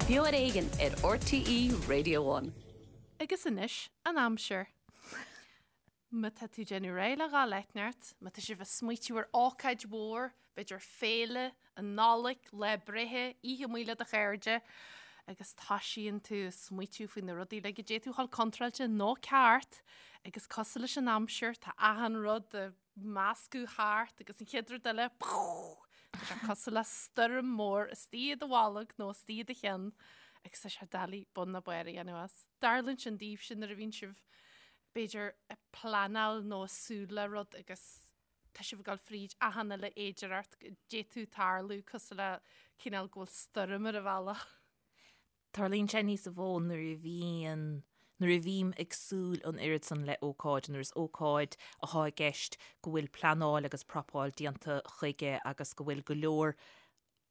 Beo ar Éigean ar RTÉ Radio One. Agus anois, an aimsir. Má tá tú ag déanamh réidh le dhul eitneacht, má tá sibh ag smaoitiú ar ócáid mhór, b'fhéidir féile, an Nollaig, lá breithe, oíche amuigh le do chairde, agus toisíonn tú ag smaoitiú faoi na rudaí uilig a d'fhéadfadh a dhul contráilte nó ceart, agus cosúil leis an aimsir, tá achan rud ag meascadh thart agus an chéad rud eile, tá sé cosúil le stoirm mór istigh i do bholg nó istigh i do cheann agus tá sé doiligh bun ná barr a dhéanamh as. Tarlaíonn sin daoibhse nuair a bhíonn sibh b'fhéidir ag pleanáil nó ag súil le rud agus tá sibh ag dul fríd achan uile fhéidearthacht go d'fhéadfadh tarlú cosúil le cineál go bhfuil stoirm ar an bhealach. Tarlaíonn sé níos mó nuair a bhíonn, nuair a bhím ag súil an oiread san le ócáid, nuair is ócáid atá i gceist go bhfuil pleanáil agus prapáil déanta chuige agus go bhfuil go leor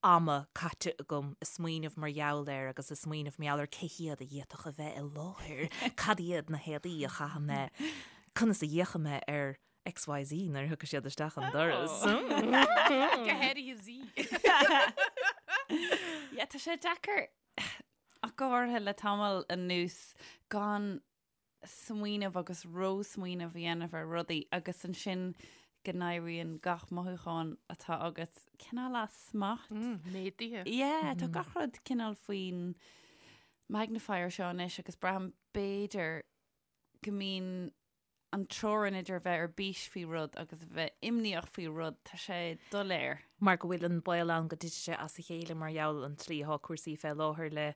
ama caite agam ag smaoineamh mar gheall air agus ag smaoineamh mar gheall ar cé hiad a d'fhéadfadh a bheith i láthair, cad iad na héadaí a chaithfidh mé, conas a fhéachfaidh mé ar XYZ nuair a thiocfaidh siad isteach an doras. Go háirithe Z. Yeah, tá sé deacair ach go háirithe le tamall anuas gan smaoineamh agus ró-smaoineamh a dhéanamh ar rudaí agus ansin go n-éiríonn gach mothúchán atá agat cineál as smacht. Méadaithe. Yeah, tá gach rud cineál faoin magnifier seo anois agus braithim b'fhéidir go mbíonn an teorainn idir a bheith ar bís faoi rud agus a bheith imníoch faoi rud, tá sé doiléir. Mar go bhfuil an baol ann go dtitfidh sé as a chéile mar gheall an tslí atá cúrsaí fé láthair le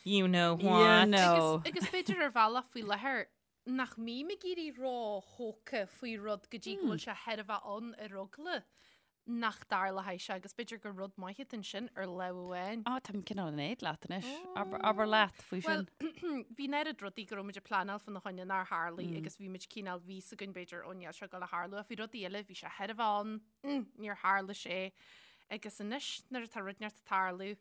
you know what. You know. Agus, agus b'fhéidir ar bhealach faoi láthair nach mbím ag éirí ró-thógtha faoi rud go dtí go bhfuil sé chóir a bheith ann ar eagla nach dtarlóidh sé agus b'fhéidir gur rud maith atá ansin ar lámh amháin. Á, táim cineál in éad leat anois. Abair, abair leat faoi Well, sin. bhí an oiread rudaí go raibh muid ag pleanáil fána choinne nár tharlaigh agus bhí muid cineál bhí fhios againn b'fhéidir ó níl sé ag dul a tharlú ach bhí rudaí eile bhí sé chóir a bheith ann, mm, níor tharla sé. Agus anois nuair atá rud inteacht ag tarlú,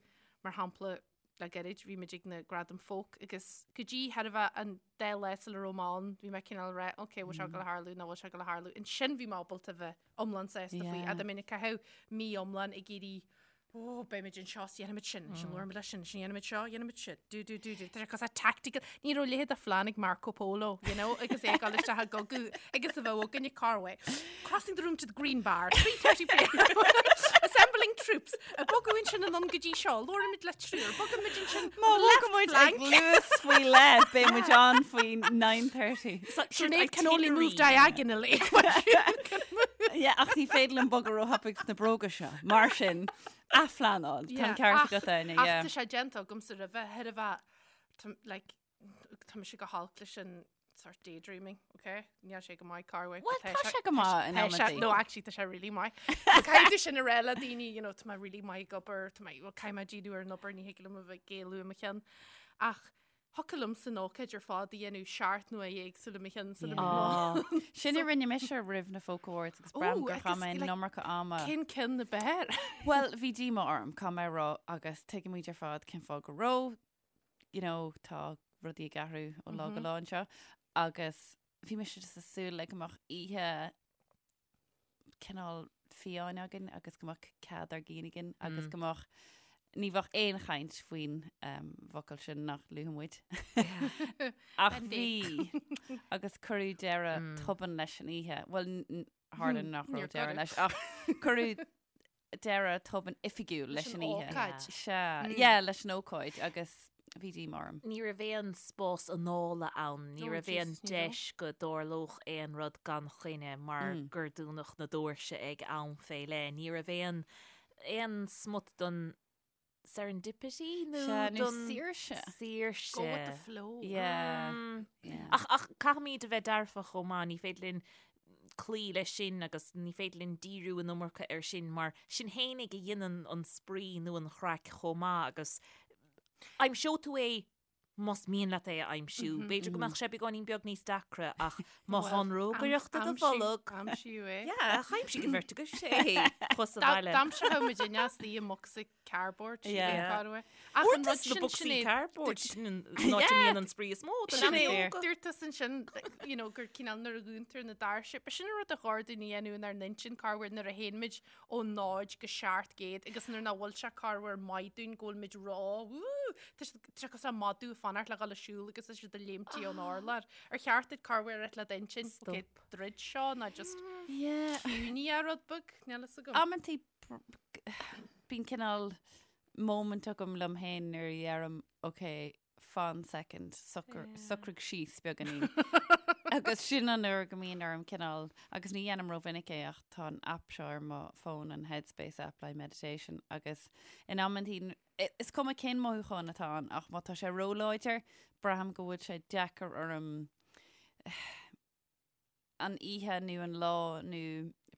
mar shampla le gairid bhí muid ag na Gradaim Folk agus go dtí chóir a bheith an dá lá sula raibh mé ann bhí mé cineál ag rá ok bhfuil sé ag dul a tharlú nó bhfuil sé ag dul a tharlú. Ansin bhí mé ábalta a bheith iomlán sásta faoi. Yeah. Fhada minic a caitheadh mí iomlán ag iarraidh ó beimid anseo is dhéanfaimid sin, sin labhróimid leis sin, sin dhéanfaimid seo, dhéanfaimid sin, do do do do. Tá sé cosúil tactical. Ní raibh a leithéid de phlean ag Marco Polo, you know, agus é ag dul isteach i gcogadh agus a bheadh againn ag Carway. Crossing the room to the green bar, 3:30 p.m. Assembling troops. Ag bogadh ansin anonn go dtí seo, labhróimid le triúr, bogaimid ansin Má bhogaimid ag luas faoi leith, beidh muid ann faoi 9:30. Sinéad can only move diagonally. Yeah, ach ní féidir liom bogadh róthapaidh sna bróga seo. Mar sin, athphleanáil. Tá an ceart agat, Áine, Ach yeah. tá sé déanta agamsa roimhe, chóir a bheith, tá- like, tá mise go holc leis an sort daydreaming, ok? Níl sé go maith Carway. Well, tá sé go maith in amantaí. No, actually, tá sé really maith. Caithfidh tú sin a rá le daoine, you know, tá mé really maith ag obair, tá mé, well, caithfidh mé díriú ar an obair, ní thig liom a bheith ag éalú i mo cheann. Ach thiocfadh liomsa an ócáid ar fad a dhéanamh seacht n-uaire éagsúla i mo cheann sula Yeah. Sin a rinne mise roimh na Folk Awards agus braithim gur chaith mé an iomarca ama. Cén ceann ab fhearr? Well, bhí díomá orm, caithfidh mé a rá, agus tuigimid ar fad cén fáth go raibh, you know, tá rudaí ag athrú ó lá go lá anseo agus bhí mise just ag súil le go mbeadh oíche cineál fiáin againn agus go mbeadh cead ár gcinn againn agus go mbeadh ní bheadh aon chaint faoin um, bhfocal sin nach luafaidh muid. Ach bhí agus cuireadh deireadh tobann leis an oíche. Well, tharla nach raibh deireadh leis ach cuireadh deireadh tobann oifigiúil leis an oíche. ócáid. Sea, yeah, leis an ócáid agus bhí díomá orm. Ní raibh aon spás anála ann, ní Oh, raibh aon Jesus, ní raibh. deis go dtarlódh aon rud gan choinne mar gur dúnadh na doirse ag am fé leith. Ní raibh aon aon smut don serendipity nó Sea, nó don saoirse. saoirse. Go with the flow. Yeah. Yeah. Ach, ach caithfimid a bheith dearfach chomh maith, ní féidir linn cloí leis sin agus ní féidir linn díriú an iomarca air sin mar sin fhéinig a dhéanann an spraoi nó an chraic chomh maith agus aimseoidh tú é. Más mian leat é a aimsiú, b'fhéidir go mbeadh sé beagáinín beag níos deacra ach má tá an rógaireacht i do bholg. Aimsíodh é. Yeah, aimsigh an bheirt agaibh é thuas sa bhaile. D'aimseodh muid inneas í i mbocsa cardboard. Yeah. Cá raibh é. Ach an Uaireanta rud sna sin, bocsaí Sinéad, cardboard, sin an áit a mbíonn an spraoi is mó do leanaí Sinéad, óga. dúirt tusa ansin, you know, gur cineál nuair a dhúntar na doirse, ba sin an rud a chóir dúinn a dhéanamh inár n-intinn, corruair nuair a théann muid ó 0 go 700 agus nuair nach bhfuil sé corruair maith dúinn go bhfuil muid ró, wú, tá siad tá sé cosúil le madadh ag fanacht le dhul ag siúl agus tá siad ag léimtí ón urlár. Ar cheart duit corruair a rá le d'intinn, ok, druid seo ná just Yeah. ciúnaigh é rud beag, níl fhios agam. Amantaí bíonn cineál moment agam liom féin nuair a dheirim, ok, fan second, socraigh síos beagáinín. Agus sin an uair go mbíonn orm cineál, agus ní dhéanaim rómhinic é ach tá an app seo ar mo fón, an Headspace app le meditation, agus in amantaí, is cuma cén mothúchán atá ann ach má tá sé róláidir, braithim go bhfuil sé deacair orm an oíche nó an lá nó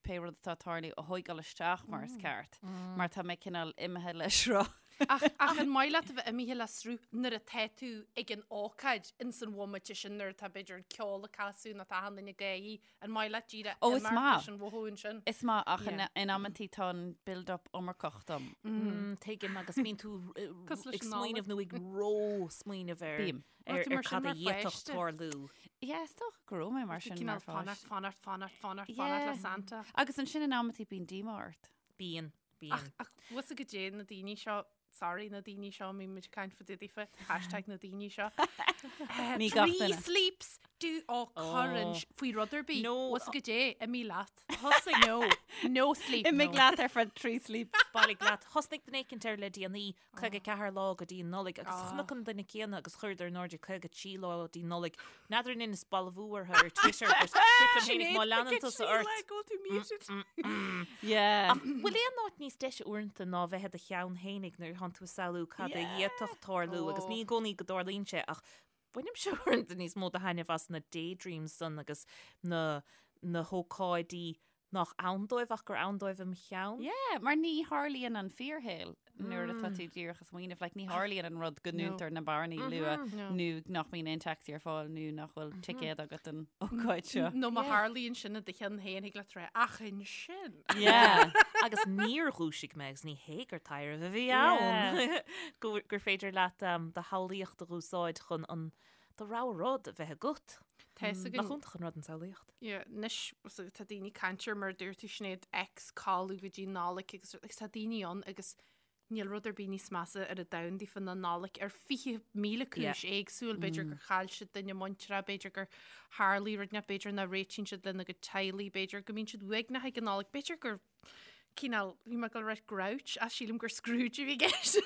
pé rud atá ag tarlú a thóigeáil isteach mar is ceart, mar tá mé cineál imithe le sruth. Ach ach an maith leat a bheith imithe le sruth nuair atá tú ag an ócáid ins an bhomaite sin nuair atá b'fhéidir an ceol ag casadh nó tá achan duine ag gáirí, an maith leat díreach Ó, is imeacht maith. leis an mhothú ansin? Is maith ach in, Yeah. in amantaí tá an build-up iomarcach dom. Mm, tuigim agus bíonn tú eh, Cosúil leis ag an smaoineamh nó ag ró-smaoineamh ar Bím. ar Raibh tú mar ar sin cad a mar d'fhéadfadh pháiste? tarlú. Yeah, is dócha go raibh mé mar Tú sin cineál mar fanacht, pháiste. fanacht, fanacht, fanacht, Yeah. fanacht le Santa. Agus ansin in amantaí bíonn díomá ort. Bíonn, bíonn. Ach, ach bhfuil fhios agat goidé na daoine seo, sorry, na daoine seo, mbíonn muid ag caint fá dtaobh daofa, hashtag na daoine seo. Eh, Ní gach Tree duine. sleeps, do ó cuireann faoi rud ar bith. No. Bhfuil fhios agat goidé, imigh leat. Thosaigh No, no sleep. Imigh no. leat ar feadh trí sleep. Bailigh leat. Thosnaigh duine éicint air le déanaí, 54 lá go dtí an Nollaig agus chonac an duine céanna agus chuireadar in airde 53 lá go dtí an Nollaig. N'fheadar an inis balbhú orthu ar Twitter but dúirt liom féinig má leanann tusa ort. Go tú muted. Yeah. Ach bhfuil aon áit níos deise uaireanta ná bheith i do cheann fhéinig nuair atánn tú ag samhlú cad a d'fhéadfadh tarlú agus ní i gcónaí go dtarlaíonn sé ach bainimse uaireanta níos mó de thaitneamh as na daydreams san agus na na hócáidí nach ann dóibh ach gur ann dóibh im cheann. Yeah, mar ní tharlaíonn an fíorshaol nuair atá tú díreach ag smaoineamh, like, ní tharlaíonn an rud go ndúntar na bearnaí luath nó nach mbíonn aon taxi ar fáil nó nach bhfuil ticéad agat don ócáid seo. Nó má tharlaíonn sin i do cheann féin, thig leat rá, ach ansin. Yeah. Agus níor dhúisigh mé agus ní hé gur taidhreamh a bhí ann gur gur féidir leat um, do shamhlaíocht a úsáid chun an do rogha rud a bheith agat. Tá fhios againn. Nach iontach an rud an tsamhlaíocht? Yeah, anois so tá daoine ag caint ar mar a dúirt tú Sinéad X codladh go dtí Nollaig agus agus tá daoine ann agus níl rud ar bith níos measa ar an domhan daofa ná Nollaig ar 20,000 cúis éagsúil, b'fhéidir gur chaill siad duine muinteartha, b'fhéidir gur tharlaigh rud inteacht, b'fhéidir nach réitíonn siad lena gcuid teaghlaigh, b'fhéidir go mbíonn siad uaigneach ag an Nollaig, b'fhéidir gur cineál, bhí mé ag dul a rá grouch, ach sílim gur Scrooge a bhí i gceist.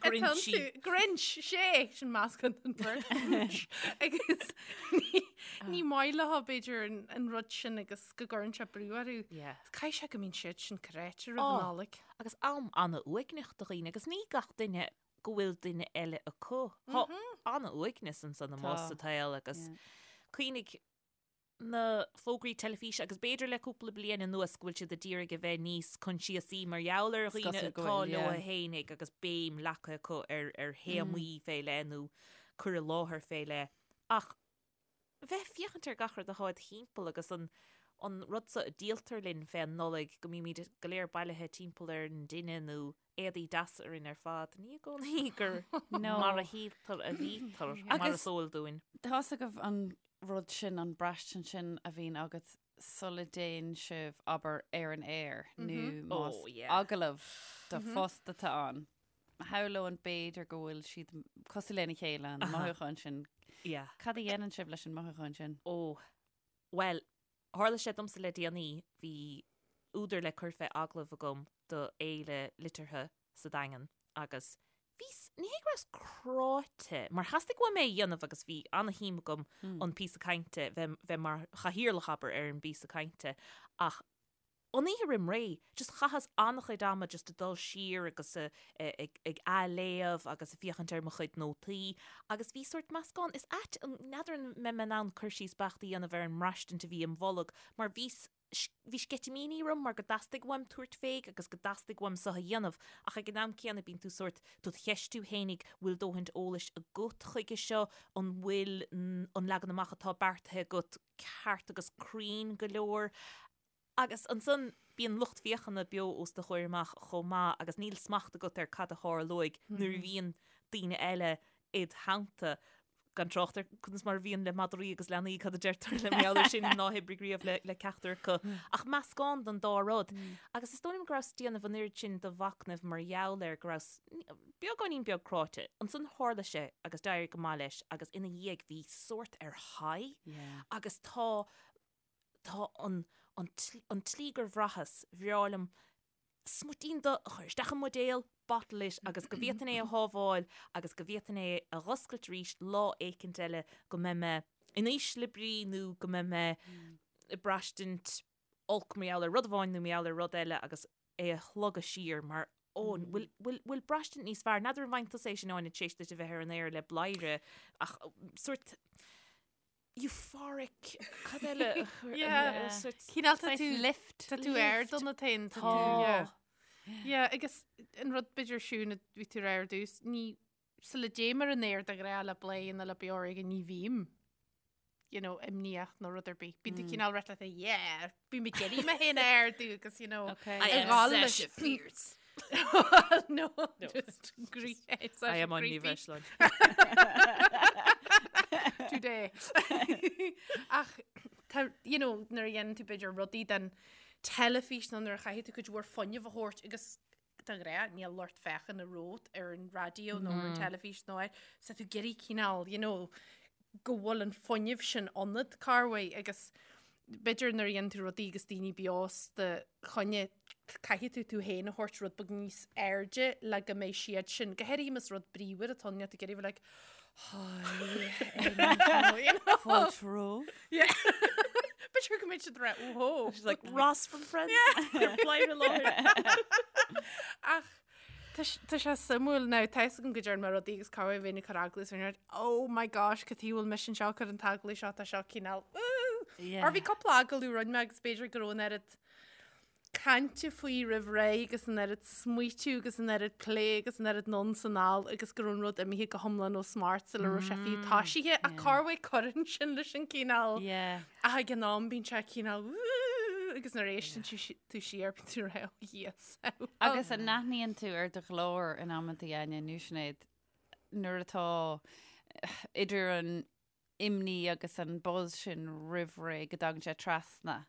Grinchy. Grinch, sé, sin meascán den bheirt. Grinch. Agus ní, ní maith leo b'fhéidir an, an rud sin agus go gcuireann sé brú orthu. Yeah. Caithfidh sé go mbíonn siad sin cráite roimh Oh. an Nollaig. Agus am an-uaigneach do dhaoine agus ní gach duine go bhfuil duine eile acu. Tá an-uaigneas ansan amuigh Tá. sa tsaol agus Yeah. cuimhnigh na fógraí teilifíse agus b'fhéidir le cúpla bliain anuas go bhfuil siad a d'iarraidh a bheith níos coinsiasaí mar gheall ar dhaoine cosúil go atá bhfuil, leo yeah. fhéinig agus béim leagtha acu ar ar théamaí fé leith nó cur i láthair fé leith. Ach bheith ag féachaint ar gach rud atá id thimpeall agus an an rud so a díoltar linn fén Nollaig go mbímid go léir bailithe timpeall ar an dtine nó éadaí deasa orainn ar fad, ní i gcónaí gur No. mar a shíltear a bhítear mar Agus- is eol dúinn. Tá's agaibh an rud sin, an braistint sin a bhíonn agat sula dtéann sibh, abair, ar an aer nó más Oh, yeah. agallamh do phost atá ann. Shamhlóinn b'fhéidir go bhfuil siad cosúil lena chéile, an mothúchán sin. Yeah. Cad a dhéanann sibh leis an mothúchán sin? Ó, bhuel, tharla sé domsa le déanaí, bhí údar le cur fé agallamh agam do fhéile liteartha sa Daingean agus bhíos, ní hé go rabhas cráite, mar theastaigh uaim é a dhéanamh agus bhí ana-shuim agam an píosa cainte, bheith, bheith mar chathaoirleach, abair, ar an bpíosa cainte ach an oíche roim ré, just chaitheas an-chuid ama just ag dul siar agus ag, ag athléamh agus ag féachaint ar mo chuid nótaí agus bhí sórt meascán, is ait, n'fheadar an mbeidh mé in ann cur síos beacht a dhéanamh ar an mbraistint a bhí im bholg mar bhíos. Bhí sceitimíní orm mar go dteastaigh uaim tabhairt fé agus go dteastaigh uaim seo a dhéanamh ach ag an am céanna bíonn tú sórt, tú ag ceistiú fhéinig, bhfuil dóthaint eolais agat chuige seo, an bhfuil an leagan amach atá beartaithe agat ceart agus cruinn go leor. Agus ansan bíonn lucht féachana beo os do chomhair amach chomh maith agus níl smacht agat ar cad a tharlóidh nuair a bhíonn daoine eile id theannta, gan trácht ar conas mar a bhíonn le madraí agus leanaí, cad a deirtear le mar gheall air sin ná hoibrigh riamh le ceachtar acu. Ach meascán den dá rud. Agus is dóigh liom go rabhas ag déanamh an oiread sin de mhachnamh mar gheall air go rabhas beagáinín beag cráite. Ansan tharla sé agus d'éirigh go maith leis agus ina dhiaidh bhí sórt ar high agus tá tá an an an tslí gur bhraitheas, bhreá liom smuitín de a chur isteach i mbuidéal, bottle it, agus go bhféadfainn é a shábháil agus go bhféadfainn é a dh'oscailt arís lá éicint eile go mbeidh mé in ísle brí nó go mbeidh mé ag braistint olc mar gheall ar rud amháin nó mar gheall ar rud eile agus é a shlogadh siar mar ó, bhfuil, bhfuil, bhfuil braistint níos fearr? N'fheadar an bhfaigheann tusa é sin Áine tar éis duit a bheith ar an aer le Bladhaire ach sórt euphoric, cad eile? Yeah. Cineál tá tú lift. Tá tú ar do na tain tá. Tá. Yeah, agus an rud b'fhéidir siún a bhí tú ar dtús, ní sula dtéim ar an aer de ghnáth le Bladhaire nó le Beo Ar Éigean ní bhím you know, imníoch nó rud ar bith. Bíonn tú cineál rite le yeah, bím ag iarraidh mé féin a ardú agus you know, Okay. I am ag gabháil leis- Sasha Fierce. no, just creepy. I am on Ní Bhreisleáin. Today. Ach tá, you know, nuair a dhéanann tú b'fhéidir rudaí den teilifís nó nuair a chaithfidh tú cuid mhór fuinnimh a thabhairt agus de ghnáth níl lucht féachana romhat ar an raidió nó ar an teilifís nó ar so tú ag iarraidh cineál, you know, go bhfuil an fuinneamh sin ionat corruair agus b'fhéidir nuair a dhéanann tú rudaí agus daoine beo os do choinne caithfidh tú tú féin a thabhairt rud beag níos airde le go mbeidh siad sin, go háirithe más rud bríomhar atá ann, níl tú ag iarraidh bheith like hi, you know. Fáilte romhaibh. Yeah. B'fhéidir go mbeidh siad rá oh She's like Ross from Friends. Bladhaire i láthair. Ach tá tá sé suimiúil now, tá fhios agam go dtearn mé rudaí agus corruair bheinn ag cur agallamh is bheinn like, oh my gosh, cad chuige a bhfuil mise anseo ag cur an t-agallamh seo, tá seo cineál, ooh. Yeah. Or bhí cúpla agallamh a rinne mé agus b'fhéidir go raibh an oiread cainte faoi roimh ré agus an oiread smaoitiú agus an oiread plé agus an oiread anonn 's anall agus go raibh an rud imithe go hiomlán ó smacht sula raibh sé fiú toisithe ach corruair cuireann sin leis an cineál Yeah. ach ag an am bíonn sé cineál "Woo!" agus nuair a éisteann tú si- tú siar bíonn tú rá oh yes. Agus an n-aithníonn tú ar do ghlór in amanta Áine nó Sinéad nuair atá idir an imní agus an buzz sin roimh ré go dtagann sé trasna?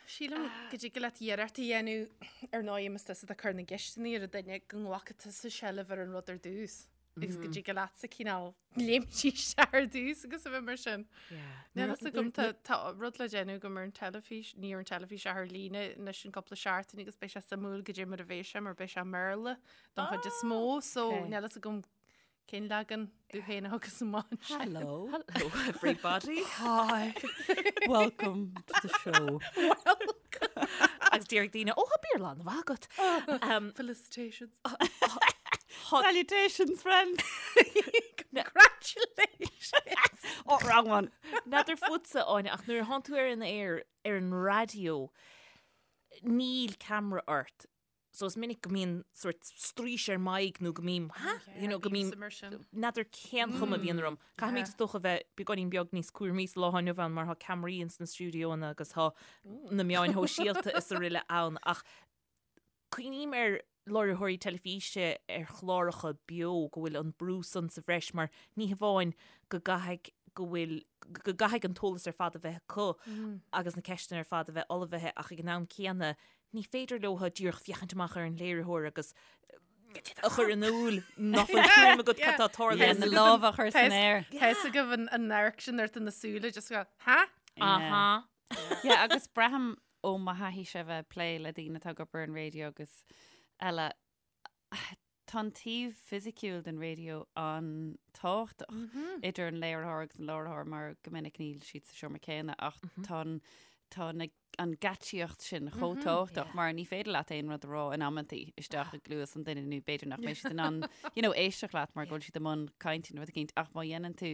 Sílim go dtig leat iarracht a dhéanamh ar ndóigh más tusa atá ag cur na gceisteanna ar an duine go nglacfaidh tusa seilbh ar an rud ar dtús agus go dtig leatsa cineál léimt isteach ar dtús agus a bheith mar sin. Níl fhios agam tá tá rud le déanamh agam ar an teilifís, ní ar an teilifís ach ar líne anois in cúpla seachtain agus beidh sé suimiúil goidé mar a bheidh sé mar beidh sé i mBéarla don chuid is mó so níl fhios agam Cén leagan tú féin a thugas amach ansin? Hello. Hello everybody. Hi. Welcome to the show. Welcome. Agus déarfaidh daoine, ó, tá Béarla an-mhaith agat. Um, Felicitations. Salutations, friends. Congratulations. Oh, wrong one. N'fheadar fútsa, Áine, ach nuair a thánn tú ar an aer ar an raidió, níl ceamara ort. So is minic go mbíonn sort straois ar m'aghaidh nó go mbím, ha? You know, go mbím, n'fheadar cén chuma a bhíonn orm. Caithfimid is dócha bheith beagáinín beag níos cúramaí sa lá atá inniu ann mar tá ceamaraí ins na stiúideoanna agus tá na meáin shóisialta is araile ann ach cuimhním ar láithreoirí teilifíse ar chláracha beo go bhfuil an brú san sa bhreis mar ní hamháin go gcaithfidh go bhfuil go gcaithfidh an t-eolas ar fad a bheith acu agus na ceisteanna ar fad a bheith ullmhaithe ach ag an am céanna Ní féidir leo díreach féachaint amach ar an léiritheoir agus a chur in iúl nach bhfuil tuairim agat cad tá ag tarlú. Yeah, na lámha a chur san aer. Tá fhios agaibh an amharc sin ort na súile just go, ha? Aha. Yeah, agus braithim ó mo thaithí-se bheith ag plé le daoine atá ag obair ar an raidió agus eile, tá an taobh fisiciúil den raidió an-tábhachtach idir an léiritheoir agus an láithreoir mar go minic níl siad sa seomra céanna ach tá an, tá na an geáitsíocht sin chomh tábhachtach mar ní féidir leat aon rud a rá in amantaí isteach i gcluas an duine nó b'fhéidir nach mbeidh siad in ann you know, éisteacht leat mar go bhfuil siad i mbun cainte nó rud eicínt ach má dhéanann tú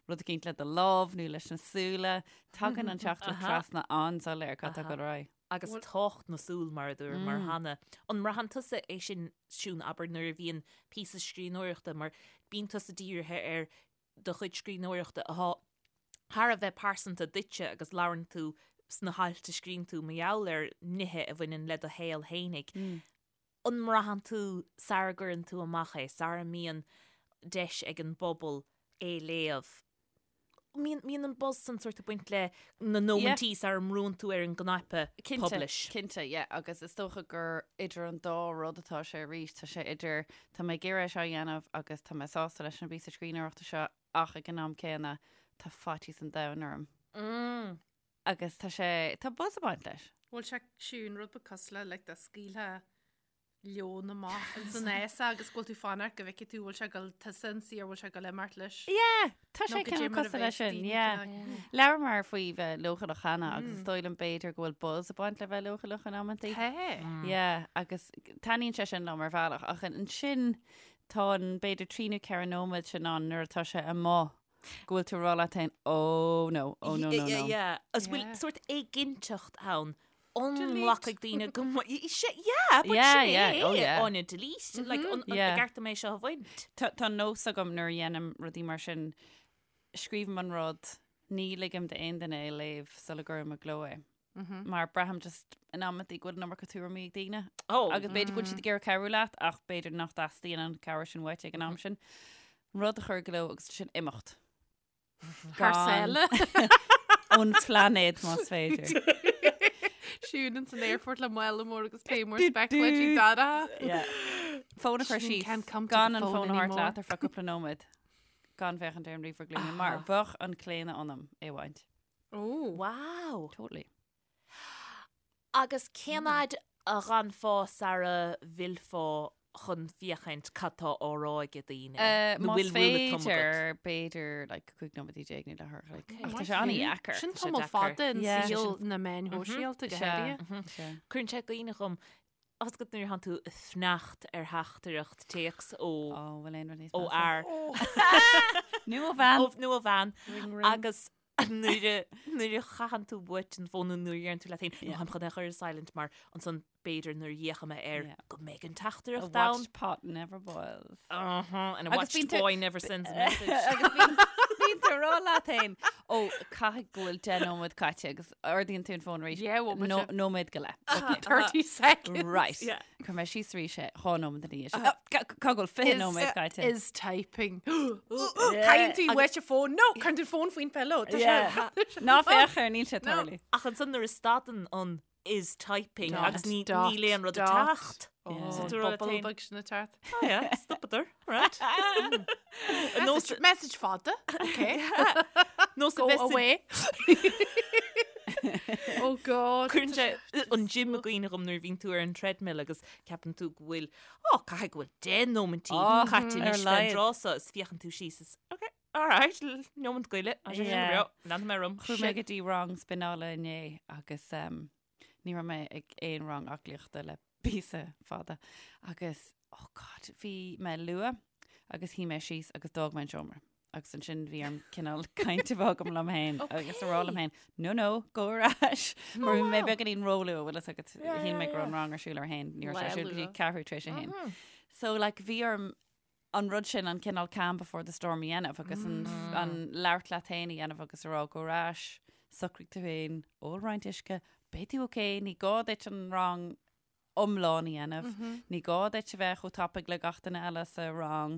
rud eicínt le do lámh nó leis na súile, tagann an teachtaireacht trasna an-soiléir cad tá ag dul ar aghaidh. Agus tábhacht na súl mar a dúramar cheana. An mbraitheann tusa é sin, Siún, abair nuair a bhíonn píosa scríbhneoireachta mar bíonn tusa dírithe ar do chuid scríbhneoireachta atá thar a bheith pearsanta duitse agus labhrann tú sna hailt a scríobhann tú mar gheall ar nithe a bhaineann le do shaol fhéinig. An mbraitheann tú sara gcuireann tú amach é, sara mbíonn deis ag an bpobal é léamh, mbíonn an buzz san sórt ag baint le na nóimintí sara mbrúnn tú ar an gcnaipe publish? Cinnte, yeah, agus is dócha gur idir an dá rud atá sé arís, tá sé idir tá mé ag iarraidh é seo a dhéanamh agus tá mé sásta leis an bpíosa scríbhneoireachta seo ach ag an am céanna tá faitíos an domhain orm. Agus tá sé, tá buzz ag baint leis. Bhfuil sé Siún rud beag cosúil le like dá scaoilfeá leon amach ins an fhásach agus go bhfuil tú fanacht go bhfeicfidh tú bhfuil sé ag dul tusa ionsaí ar bhfuil sé ag dul imeacht leis. Yeah, tá sé cineál cosúil leis sin, yeah. Labhramar faoi bheith leochaileach cheana agus is dóigh liom b'fhéidir go bhfuil buzz ag baint le bheith leochaileach in amantaí. Tá. Yeah, agus taitníonn sé sin liom ar bhealach ach ansin tá an b'fhéidir 3 nó 4 nóiméad sin ann nuair atá sé amuigh go bhfuil tú ag rá leat féin, oh no, oh no, no, no. Yeah, agus bhfuil sórt éiginnteacht ann an nglacfaidh daoine go Yeah, but Yeah, sin yeah, é, oh yeah. Áine, delete, like, an Yeah. gceart dom é seo a bhaint? Tá tá nós agam nuair a dhéanaim rudaí mar sin, scríobhaim an rud, ní ligim d'aon duine é a léamh sula gcuirim i gcló é. Mar braithim just in amantaí go bhfuil an iomarca tuairimí ag daoine. Oh. Agus b'fhéidir go bhfuil siad ag iarraidh cabhrú leat ach b'fhéidir nach dteastaíonn an cabhair sin uait ag an am sin. Rud a chur i gcló agus ansin imeacht. Thar sáile. Ón phláinéad más féidir. Siún ins an airport le mála mór agus pé mór speculaidí dara. Yeah. Fón a chur síos gan an fón a thabhairt leat ar feadh cúpla nóiméad. Gan féachaint ar an ríomhaire glúine mar bheadh an claonadh ionam é a bhaint. Oh. Wow. Totally. Agus cén fhad a dh'fhanfá sara bhfillfeá chun féachaint cad tá á rá ag daoine? Nó Más bhfuil rule of thumb agat? féidir, b'fhéidir like 15 nóiméad nó leathuair a chloig. Ach tá sé an-dheacair. Sin Tá sé tamall deacair. fada in Yeah. saol na meáin shóisialta go Sea. háirithe. Sea. Cuireann sé i gcuimhne dhom, tá a fhios agat nuair a thánn tú ag fanacht ar theachtaireacht téacs ó Ó, bhfuil aon rud níos ó measa? fhear Nó ó bhean. ó nó ó bhean Ring ring. agus nuair a nuair a chaitheann tú uait an fón nó nuair a deireann tú leat féin, Yeah. "Nó táim chun é a chur ar silent mar ansan b'fhéidir nuair a fhéachfaidh mé air Yeah. go mbeidh an A teachtaireacht ann. watched pot never boils. Uh-huh, and a Agus watched bíonn tú- boy never sends a message. Agus bíonn bíonn tú ag rá leat féin, ó, caithfidh go bhfuil 10 nóiméad caite agus ardaíonn tú an fón arís. Yeah, bhfuil No- mise. Nóiméad go leith. Okay. 30 seconds. Right. Yeah. Chuir mé síos arís é 2 nóiméad ina dhiaidh sin. Oh, ca- Cá bhfuil 20 nóiméad caite. Is typing. Caitheann tú uait an fón. No, cuireann tú fón faoin pillow. Tá sé- Ná féach air, níl sé No. tarlú. Ach ansan nuair a stadann an is typing Dot, agus ní dot, níl aon rud ag dot. teacht. Oh, So tú rá leat bubble féin, beag sin ag teacht. "Oh yeah, stopadar, right. Message, message fada. Okay. Nós a Go bheith sa- away. oh God. Cuireann sé an gym i gcuimhne dhom nuair a bhíonn tú ar an treadmill agus ceapann tú go bhfuil, oh, caithfidh go bhfuil 10 nóimintí Oh, caite ar anois fén laghad. dtráth so is féachann tú síos is, okay, all right, nóimint go leith, tá sé sin go Yeah. breá, leanfaidh mé orm. Chuaigh mé go dtí rang spineála inné agus um, ní raibh mé ag aon rang aclaíochta le píosa fada agus, oh God, bhí mé luath agus shuigh mé síos agus d'fhág mé an seomra. Agus ansin bhí orm cineál caint a bheith agam liom féin agus a rá liom féin, no, no, go ar ais. Mar bhí mé beagáinín róluath, bhfuil fhios agat, shíl mé go raibh an rang ar siúl ar a haon, ní raibh sé ar siúl go dtí ceathrú tar éis a haon. So like bhí orm an rud sin, an cineál calm before the storm a dhéanamh agus an, an labhairt leat féin a dhéanamh agus a rá go ar ais, socraigh tú féin, ól roinnt uisce, beidh tú ok, ní gá duit an rang iomlán a dhéanamh, ní gá duit a bheith chomh tapaidh le gach duine eile sa rang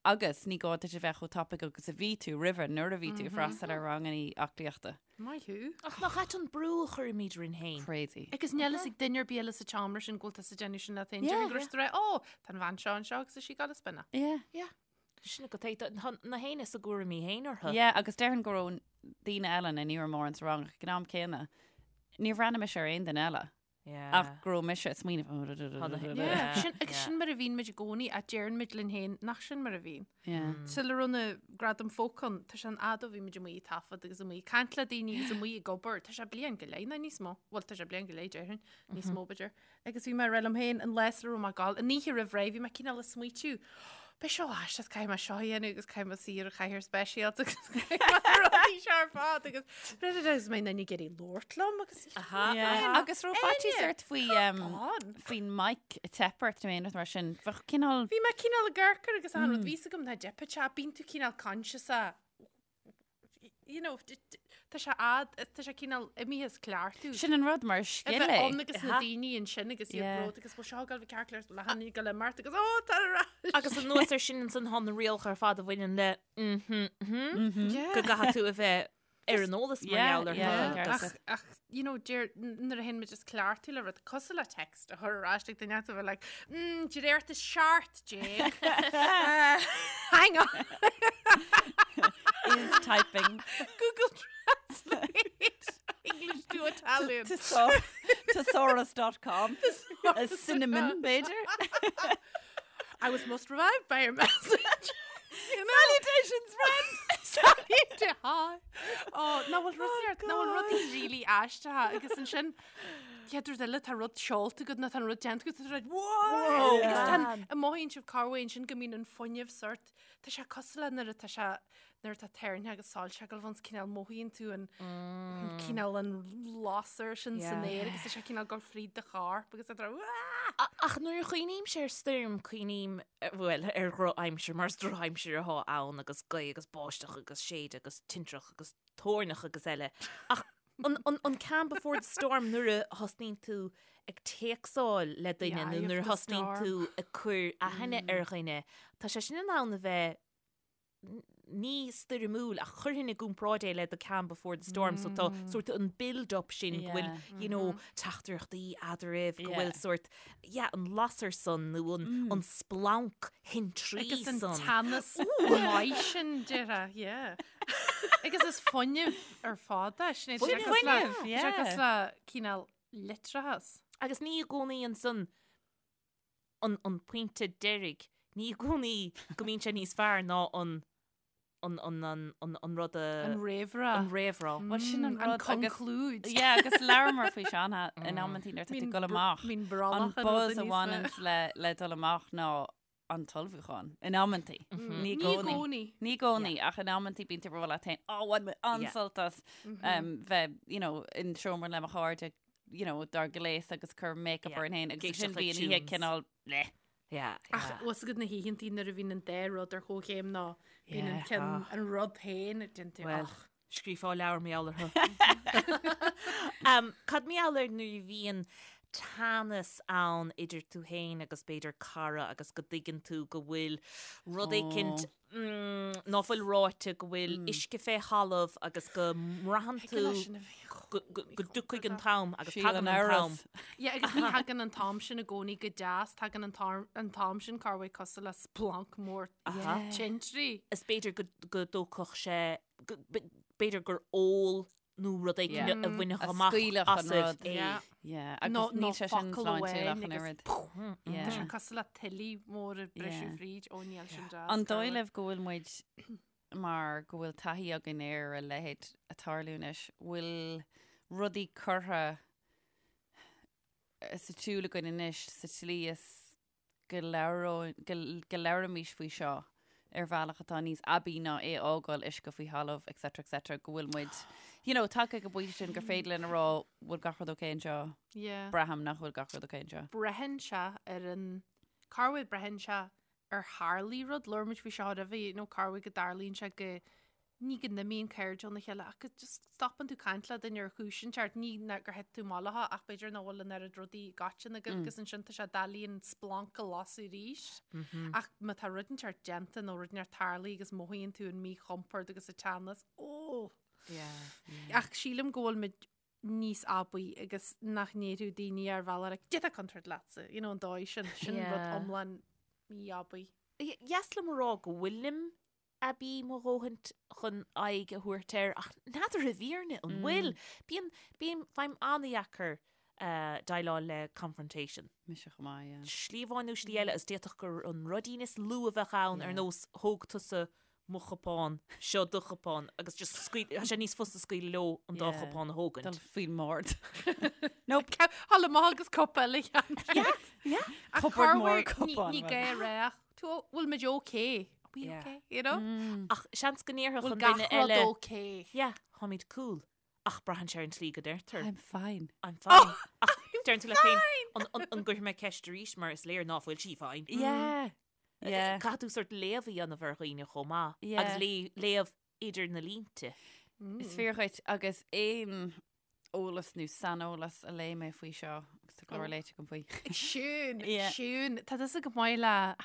agus ní gá duit a bheith chomh tapaidh agus a bhí tú roimhe nuair a bhí tú ag freastal ar ranganna aclaíochta. Maith thú. Ach nach ait an brú a chuirimid orainn féin? Crazy. Agus níl fhios ag duine ar bith eile sa tseomra sin go bhfuil tusa ag déanamh sin leat féin. Déarfainn go raibh siad ag rá, Ó, tá an bhean seo anseo agus is í ag gabháil ag spineáil. Yeah. Yeah. Sin agat é. Tá na héinne is a gcúraimí féin orthu. Yeah, agus déarfainn go raibh daoine eile, nó ní raibh mórán sa rang ach ag an am céanna, níor bhreathnaigh mise ar aon duine eile. Ach go raibh mise ag smaoineamh. Yeah, sin, agus sin mar a bhíonn muid i gcónaí a deireann muid linn féin nach sin mar a bhíonn. Yeah. Sula raibh na Gradaim Folk ann, tá sé an fhad ó bhí muid amuigh ag taifead agus amuigh ag caint le daoine agus amuigh ag obair. Tá sé bliain go leith nó níos mó. Bhuel, tá sé bliain go leith déarfainn, níos mó b'fhéidir. Agus bhí mé ag rá liom féin an lá sula raibh mé ag gabháil, an oíche roimh ré, bhí mé cineál ag smaoitiú, beidh seo aisteach, caithfidh mé seo a dhéanamh agus caithfidh mé suí ar an chathaoir speisialta agus caithfidh mé na rudaí seo ar fad agus agus mbeidh duine ag iarraidh labhairt liom agus Yeah. Agus raibh faitíos ort faoi um, on. faoin mic ag teip ort nó aon rud mar sin. Bheadh cineál Bhí mé cineál ag amharc air agus an rud bhí a fhios agam nach dteipfeadh sé, bíonn tú cineál conscious a you know, tá sé ad, tá sé cineál imithe as cleachtadh. Sin an rud mar scil é. Ann agus na daoine ansin agus iad bród agus bhfuil seo ag gabháil ceart le hanna go le mart agus ó tá ar ais. Agus anuas ar sin ansan tá na rialacha ar fad a bhaineann le mhm go gcaithfidh tú a bheith ar an eolas mar gheall orthu. Ach, ach, you know, deir, nuair a théann muid as cleachtadh le rud cosúil le text a chur ar ais ag duine a bheith like, mm, de réir 17. Uh, hang on. Is typing. Google Translate. English to Italian. Thesaurus.com. A cinnamon, b'fhéidir. I was most revived by your message. You know? Salutations, friend! Salutations! Oh, ná bhfuil rud ná bhfuil rudaí really aisteach agus ansin chéad rud eile tá rud seolta agat nó tá an rud déanta agat tá rud wow! Agus tá an mothaíonn sibh corruair ansin go mbíonn an fuinneamh sort tá sé cosúil le nuair atá sé nuair atá toirne agus soilse ag dul ann cineál mothaíonn tú an cineál an lasair sin san aer agus tá sé cineál dul fríd do chorp agus tá Ach nuair a chuimhnímse ar stoirm, cuimhním, bhuel, ar dhrochaimsir, mar is drochaimsir atá ann agus gaoth agus báisteach agus séideadh agus tintreach agus toirneach agus eile. Ach an, an, an calm before the storm nuair a thosnaíonn tú ag téacsáil le duine nó nuair a thosnaíonn tú ag cur aithne ar dhuine, tá sé sin in ann a bheith ní stoirmiúil ach chuirfinn i gcomparáid é le the calm before the storm so tá sort an build up sin go bhfuil you know teachtaireachtaí eadraibh go bhfuil sort yeah an lasair san nó an an splanc thintrí Agus an san. teannas maith sin déarfá, yeah. Agus is fuinneamh ar fad é, sin é. Tá sé Fuinneamh, cosúil le- tá sé yeah. cosúil le cineál leictreachas. Agus ní i gcónaí ansan an an pointe deiridh, ní i gcónaí go mbíonn sé níos fearr ná an an an an an an rud a An réamhrá. an réamhrá. Bhuel sin an Mm, an rud agus conclúid. Yeah, agus labhramar faoi seo in amantaí nuair atá tú ag dul amach. Mín An brollach an buzz rud a níos mó. bhaineanns le le dul amach ná an t-ullmhúchán. In amantaí. Ní i Ní i gcónaí. gcónaí. Ní i gcónaí, ach in amantaí bíonn tú ag rá leat féin, "Ó, bhain mé an-sult as um, bheith, you know, in seomra le mo chairde you know, dár ngléas agus cur make-up Yeah. orainn féin agus Éisteacht sin le bhí an oíche tunes. cineál bleh. Yeah, Ach yeah. bhfuil a fhios agat na hoícheantaí nuair a bhíonn an dá rud ar chomhchéim ná bíonn an Yeah. ceann an rud féin ag déanamh Well, ach. scríofá leabhar mar gheall orthu. Um, cad mar gheall ar nuair a bhíonn teannas ann idir tú féin agus b'fhéidir cara agus go dtuigeann tú go bhfuil rud éicint ná fuil ráite go bhfuil uisce fé thalamh agus go mbraitheann tú go dtiocfaidh an t-am agus tagann an t-am. Yeah, agus ní thagann an t-am sin i gcónaí go deas, tagann an t-am sin corruair cosúil le splanc mór tintrí. Is b'fhéidir go dtógfadh sé, b'fhéidir gur ól nó rud éigin a bhainfeadh amach asaibh é. Yeah, agus níl sé sin sláintiúil ach an oiread. Tá sé cosúil le tuile mór ag briseadh fríd ó níl sin deas. An dóigh libh go bhfuil muid mar go bhfuil taithí againn ar a leithéid ag tarlú anois, bhfuil rudaí curtha sa tsiúl againn anois sa tslí is go go labhraímis faoi seo ar bhealach atá níos aibí ná é a fhágáil uisce faoi thalamh etc etc go bhfuil muid you know tagtha ag an bpointe sin gur féidir linn a rá bhfuil gach rud ok anseo Yeah. braithim nach bhfuil gach rud ok anseo. Braitheann sé ar an corruair braitheann sé ar tharlaigh rud labhair muid faoi seo roimhe you know corruair go dtarlaíonn sé go ní go n-imíonn cairde óna chéile ach go just stopann tú caint le duine ar chúis inteacht, ní gur thit tú amach leo ach b'fhéidir nach bhfuil an oiread rudaí i gcoiteann agaibh agus ansin tá sé doiligh an splanc a lasadh arís. Ach má tá rud inteacht déanta nó rud inteacht tarlaithe agus mothaíonn tú an míchompord agus an teannas, ó! Ach sílim go bhfuil muid níos aibí agus nach ndéarfadh daoine ar bhealach like, cad é atá contúirt leatsa, you know, an dóigh sin, sin rud iomlán mí-aibí. Dheas liom a rá go bhfuilim aibí mo dhóthain chun aghaidh a thabhairt air ach n'fheadar i bhfírinne an bhfuil. Bíonn, bím, faighim an-dheacair. déileáil le confrontation. Mise chomh maith, yeah. Slí amháin nó slí eile, is d'fhéadfadh gur an ruidín is lú a bheadh ann ar nós thóg tusa mo chupán, seo do chupán agus just scaoil, tá sé níos fusa scaoileadh leo an dá chupán a thógaint. Dul faoin mbord. Nope. Thall amach agus cupa eile cheana. Yeah, yeah. Ach Cupboard cá mór bhfuil- cupán, Ní bhuel. gá a rá ach, tú, bhfuil muid okay? Are we Yeah. okay? You know? Ach seans go ndéarfadh Bhfuil an gach duine rud eile, okay? yeah, táimid cool. Ach braitheann sé ar an tslí go deirtear. I'm fine. I'm fine. Ach deireann tú leat féin, an- an- an gcuirfidh mé ceist arís mar is léir ná fuil sí fine. Yeah. Yeah. Caithfidh tú sort léamh a dhéanamh ar dhaoine chomh maith. Yeah. Agus lé- léamh idir na línte. Is fíor dhuit agus aon eolas nó saineolas a léigh mé faoi seo agus tá go leor léite agam faoi. Siún, Yeah. Siún, tá tusa go maith le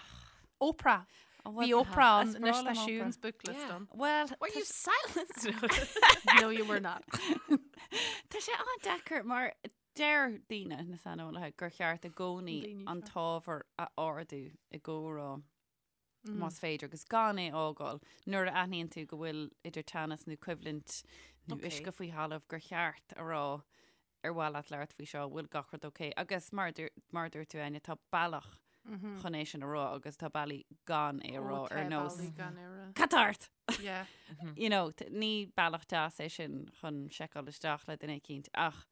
Oprah. Oh, well, Bhí Oprah is ann, anois breá tá liom Oprah. Siún's book list Yeah. ann. Well, Were you silenced? No, you were not. Tá sé an-deacair mar deir daoine na saineolaithe gur cheart i gcónaí Daoine an seo. t-ábhar a ardú i gcomhrá más féidir agus gan é a fhágáil nuair a aithníonn tú go bhfuil idir teannas nó coimhlint nó Okay. uisce faoi thalamh gur cheart a rá ar mhaith leat labhairt faoi seo, bhfuil gach rud ok. Agus mar a dúirt- mar a dúirt tú Áine, tá bealach chun é sin a rá agus tá bealaí gan é a rá Ó, tá ar nós. bealaí gan é a rá. Cad tá ort! Yeah. You know, t- ní bealach deas é sin chun seiceáil isteach le duine eicínt ach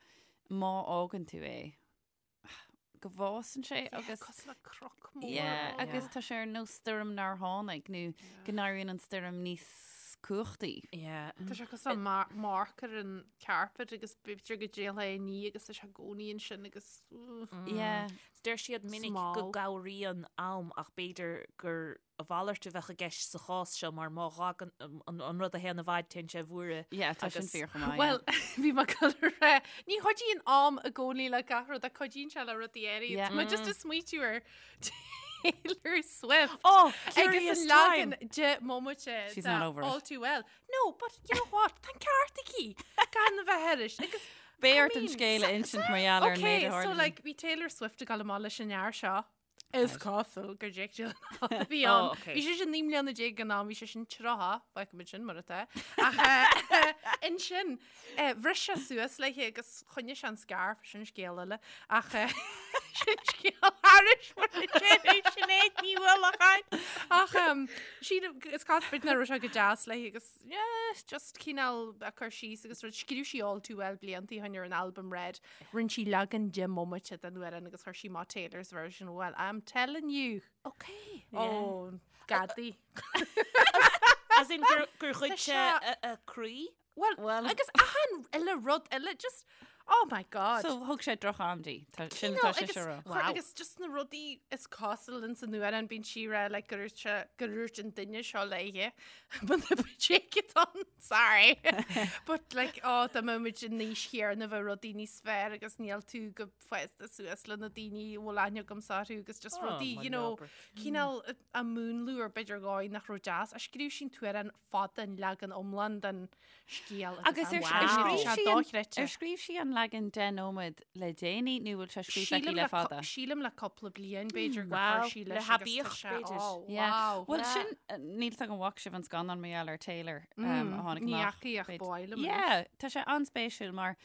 má fhágann tú é, go bhfásann sé agus Cosúil le croc mór. Yeah, ann. agus tá sé ar nós stoirm nár tháinig nó go n-éiríonn an stoirm níos cumhachtaí. Yeah. Tá sé cosúil le mar- marc ar an carpet agus b'fhéidir go dtéann é ní agus tá sé i gcónaí ansin agus Yeah. Deir siad minic go Small. gcabhraíonn am ach b'fhéidir gur a mhalairt a bheadh i gceist sa chás seo mar má fhágann an rud a théann i bhfad téann sé i bhfuaire. Yeah, tá sin Agus- fíor chomh maith. Well, bhí mé ag dul a rá, ní chuidíonn am i gcónaí le gach rud ach cuidíonn sé le rudaí áirithe. Yeah. Tá mé just ag smaoitiú ar Taylor Swift. Oh, Agus curious an time! leagan deich mbomaite She's de not over it. All Too Well. No, but you know what? Tá an ceart aici gan a bheith thairis. Agus Beidh I ort an mean, scéal a insint mar gheall ar an méid Okay, a so tharla. like bhí Taylor Swift ag dul amach leis an fhear seo. Is cosúil gur Jake Gyllenhaal a bhí Oh, ann. okay. Bhí sé sin 19 mbliana ag an am, bhí sé sin 30, feicimid sin mar atá. Ach eh, ansin, eh, bhris sé suas léi agus choinnigh sé an scarf, sin scéal eile. Ach eh, sin scéal thairis mar a deir Sinéad Ní Uallacháin. Ach em, sílim, is cosúil b'fhéidir nach raibh sé go deas léi agus yeah, just cineál a cur síos agus rud scríobh sí All Too Well blianta ó shin ar an albam Red. Rinne sí leagan deich mbomaite den amhrán agus chuir sí amach Taylor's version. Well, I'm telling you. Okay. Ó, gadaí. As in gur gur ghoid Tá sé sé- a a croí? Well, Well- agus achan uile rud eile, just, oh my God. So thug sé droch-am di. Tá- Sin No, tá sé agus seo rá. chuir- Wow. Agus just na rudaí is cosúil in san amhrán bíonn sí ag rá like, gur dhúirt sé- gur dhúirt an duine seo léi. But the take it on, sorry. But like, oh, dá mbeadh muid in aois chéanna bheadh rudaí níos fearr agus níl tú chomh fásta suas le na daoine a bhfuil aithne agamsa orthu agus just Oh, rudaí, my you know, lord. cineál a múnlú ar b'fhéidir dhóigh nach raibh deas. A scríobh sí an t-amhrán fada an leagan iomlán den scéal Agus ar Wow. ar scríobh sé sí an- dochreidte. ar scríobh sí an leagan 10 nóiméad le déanaí nó bhfuil sé scríofa aici Sílim le le fada? cu- sílim le cúpla bliain b'fhéidir gur Wow, chuir sí le leis agus tá haibíocht, sé- b'fhéidir. oh, Yeah. wow. Well Yeah. sin eh, níl a fhios agam an bhfaca sibh an scannán mar gheall ar Taylor um, a tháinig Ní amach. fhaca ach b'fhéidir. ba mhaith liom anois. Yeah, tá sé an-spéisiúil mar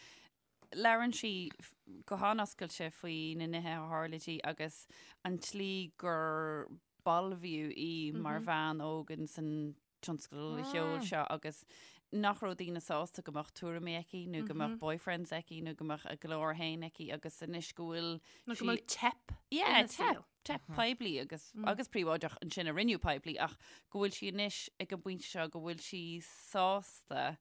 labhrann sí f- go han-oscailte faoi na nithe a tharla di agus an tslí gur balbhaíodh í mar bhean óg in san tionscal cheoil seo agus nach raibh daoine sásta go mbeadh tuairimí aici nó go mbeadh boyfriends aici nó go mbeadh a glór féin aici agus anois go bhfuil Nó go mbeadh teip Yeah, ina teip, saol. teip poiblí agus agus príobháideach ansin a rinneadh poiblí ach go bhfuil sí anois ag an bpointe seo go bhfuil sí sásta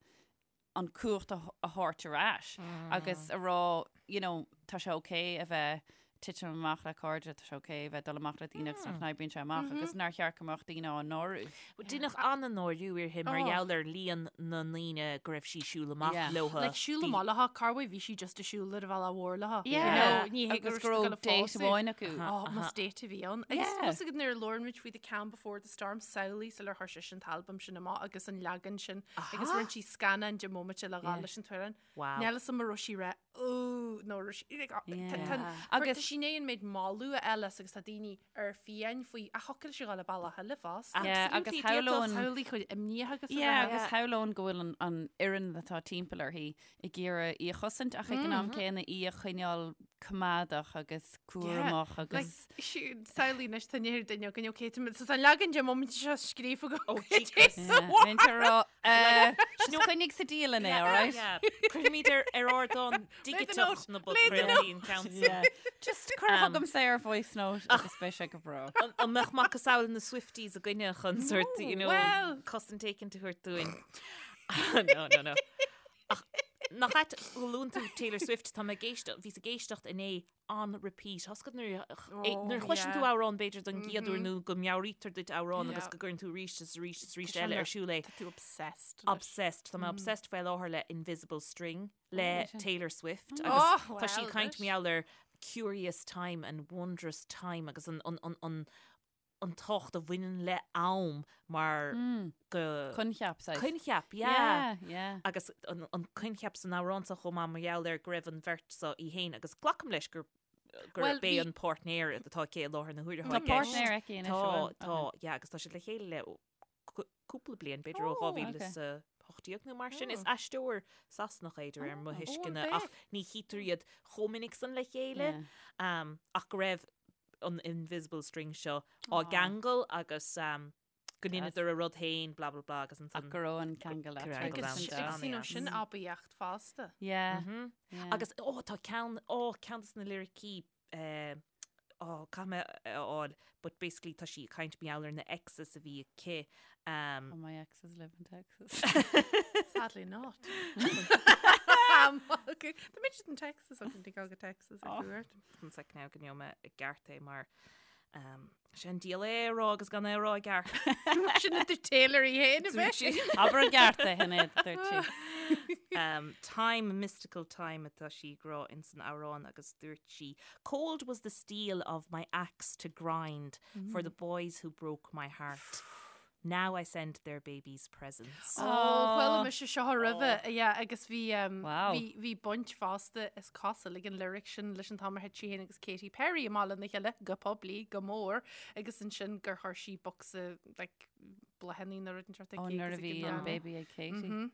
an cumhacht a a thabhairt ar ais agus a rá, you know, tá sé ok a bheith titim amach le cairde, tá sé ok a bheith dul amach le daoine agus nach n-oibríonn sé amach agus nár cheart go mbeadh daoine á náiriú. Deineadh an-náiriú uirthi mar Oh. gheall ar líon na ndaoine go raibh sí siúl amach Yeah. leo. Like siúl amach léi, cá bhfuil bhí sí just ag siúl ar a bhealach mhór léi. Yeah. You know, ní hé Agus go raibh date amháin acu. Oh, más date a bhí ann. Agus Yeah. más agad nuair a labhair muid faoi The Calm Before the Storm samhlaigh sular chuir sise an t-albam sin amach agus an leagan sin agus rinne sí scannán deich mbomaite le dhul leis an t-amhrán. Wow. Níl a fhios agam an raibh sí ag rá. Ooh, nó agus tá sí i ndiaidh an méid moladh a fháil as agus tá daoine ar fiáin faoi ach thiocfadh léi a ghabháil an bealach eile fosta. Yeah, agus shamhlóinn Samhlaigh chuid imníoch agus Yeah, agus shamhlóinn go bhfuil an an fhoireann atá timpeall uirthi ag iarraidh í a chosaint ach ag an am céanna í a choinneáil coimeádach agus cúramach agus Samhlaigh anois tá near duine againn ok tá an leagan de móimint seo scríofa agam. Oh, Jesus. Bhí a rá Just coinnigh sa dialann é, all right? Cuirfimid ar ar ardán digiteach na bpodchraoltaí an ceann sin. Just cuir chugamsa ar voice note agus beidh sé go breá. An mbeadh macasamhail na Swifties againne chun sort, you know, cosaint éicint a thabhairt dúinn? No, no, no. Ach nach ait go luann tú Taylor Swift, tá mé ag éisteacht, bhíos ag éisteacht inné on repeat. Tá a fhios agat nuair nuair a chloiseann tú amhrán b'fhéidir don gcéad uair nó go meabhraítear duit amhrán agus go gcuireann tú arís is arís is arís eile ar siúl é. Tá tú obsessed. Obsessed. Tá mé obsessed faoi láthair le Invisible String le Taylor Swift agus tá sí ag caint mar gheall ar curious time and wondrous time agus an an an an an tábhacht a bhaineann le am mar go. Coincheap, saghas. Coincheap, yeah. Yeah, yeah. Agus an, an coincheap san amhrán seo chomh maith mar gheall ar go raibh an bheirt seo í féin agus glacaim leis gur gur Well, b'é bhí- an páirtnéir atá aici i láthair na huaire Tá atá i gceist. páirtnéir aici anois, Tá, an bhfuil? tá, Okay. yeah, agus tá siad le chéile le cú- cúpla bliain, b'fhéidir ó Oh, 2018 nó mar sin. Is aisteoir Sasanach é de réir mo Oh, thuisceana an ach ní chítear iad chomh minic san le chéile. Yeah. Um, ach go raibh an invisible string seo á gceangal agus go ndeineadar a rud féin blah blah blah agus ansan Ach go raibh an ceangal eatarthu. Agus you know, sin aibíocht fosta. Yeah. Agus ó tá ceann ó ceann de na liricí eh, ó caithfidh mé a fháil but basically tá sí ag caint mar gheall ar na exes a bhí aici. Um, oh, my exes live in Texas. Sadly not. Tá muid in Texas ach an go Texas ar cuairt. One sec now go ngeobhaidh mé i gceart é mar um, sé an diabhal é a rá agus gan é a rá i gceart. Sin a dúirt Taylor í féin a bheith. Abair i gceart é Sinéad, dúirt sí. Um, time, mystical time atá sí ag rá ins an amhrán agus dúirt sí, Cold was the steel of my axe to grind for the boys who broke my heart. Now I send their babies presents. Ó, chuala mise seo roimhe, yeah, agus bhí, um, Wow. bhí, bhí baint fosta is cosúil ag an lyric sin leis an t-am ar thit sí féin agus Katy Perry amach lena chéile go poiblí, go mór, agus ansin gur chuir sí bocsa, like, bláthanna nó rud inteacht Ó, aici nuair agus a ag bhí an an am. baby ag Katy. Mhm.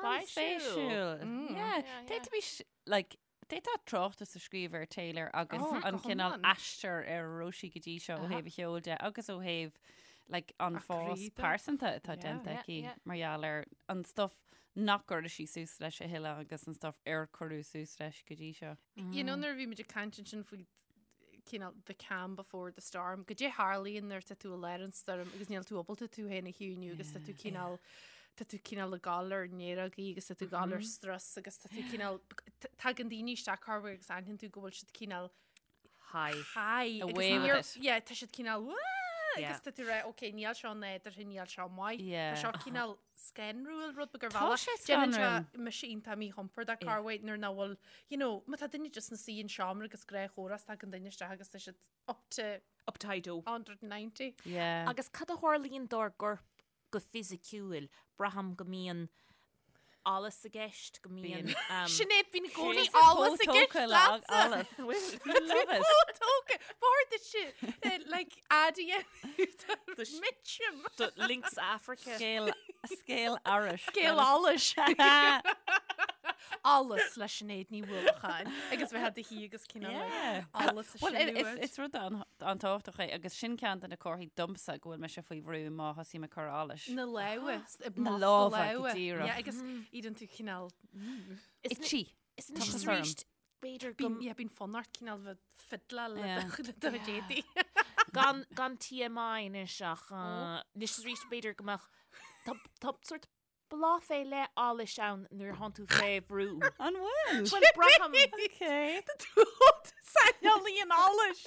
An-spéisiúil. Yeah. Yeah, yeah. D'fhéadfaimis, like, D'fhéadfá tráchtas a scríobh ar Taylor agus Oh, an go cineál hiomlán. aistear ar a raibh sí go dtí seo ó thaobh a cheoil de agus ó thaobh like, an A fás croí de. pearsanta atá Yeah. déanta Yeah, aici yeah. mar gheall ar an stuff nach gcuireadh sí suas leis a thuilleadh agus an stuff ar cuireadh suas leis go dtí seo. You know nuair a bhí muid ag caint ansin faoi cineál the calm before the storm, goidé a tharlaíonn nuair tá tú i lár an stoirm agus níl tú ábalta tú féin a chiúiniú agus tá tú cineál tá tú cineál ag gabháil ar néarógaí agus tá tú ag gabháil ar strus agus tá tú cineál tagann daoine isteach corruair agus aithníonn tú go bhfuil siad cineál High. high agus Away with níor- it. yeah, tá siad cineál "Wah!" Yeah. agus tá tú rá ok níl seo nádúrtha níl seo maith Yeah. Tá seo cineál scanrúil rud beag ar Tá bhealach. sé Déanann sé scanrúil. mise iontach míchompordach corruair nuair nach bhfuil you know má tá duine just ina suí in seomra agus gnáthchomhrá is tagann duine isteach agus tá siad up to Up to high dope. 190. Yeah. Agus cad a tharlaíonn dár gcorp go fisiciúil, braithim go mbíonn allas i gceist, go mbíonn. Sinéad, bíonn i gcónaí Tá allas i gceist tógtha le leatsa. allas. Love it. Chomh tógtha. B'fhearr duit like ad a dhéanamh Mitchum. Do Lynx Africa. Scéal scéal allais. Scéal allais. Allas le Sinéad Ní Uallacháin agus bheith do shuí agus cineál Yeah. allas a Well, sinú is, air. is rud an- an-tábhachtach é agus sin ceann de na comharthaí domsa go bhfuil mise faoi bhrú má thosaím ag cur allais. Na lámha, Na na lámha, go lámha. díreach. Yeah, agus éiríonn tú cineál Itchy. Is anois Tá is orm. arís, b'fhéidir go Bíonn yeah, bíonn fonn ort cineál bheith fiddleáil le Yeah. do le do chuid éadaí. gan gan TMI anois ach uh, anois is arís b'fhéidir go mbeadh tá tá sort bláth fé leith allais ann nuair a thánn tú fé bhrú. An bhfuil? Bhuel, braithim Okay. Saineolaí an allais.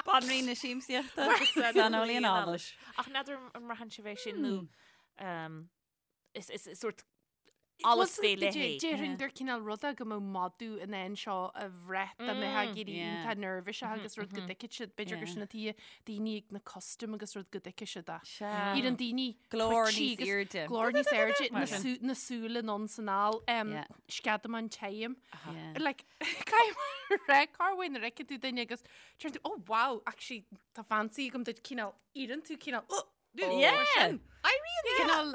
Banríon na siamsaíochta saineolaí an allais. Ach n'fheadar an mbraitheann sibh é sin nó um, is, is, is sort. Allas fé leith é. Déarfainn gur cineál rud é go mbeadh madadh in ann seo a bhrath dá mbeifeá ag éirí iontach neirbhíseach agus rud go dtuigfeadh siad, b'fhéidir gur sin an tuige daoine ag na custaim agus rud go dtuigfeadh siad é. Éiríonn daoine Glór níos airde. Glór níos airde, na súile anonn is anall, sceadamán tirim. Like, caithfidh mé a rá, corruair nuair a fheiceann tú duine agus deireann tú, oh wow, actually tá fancy agam duit cineál, éiríonn tú cineál, oh! Yeah! Éiríonn cineál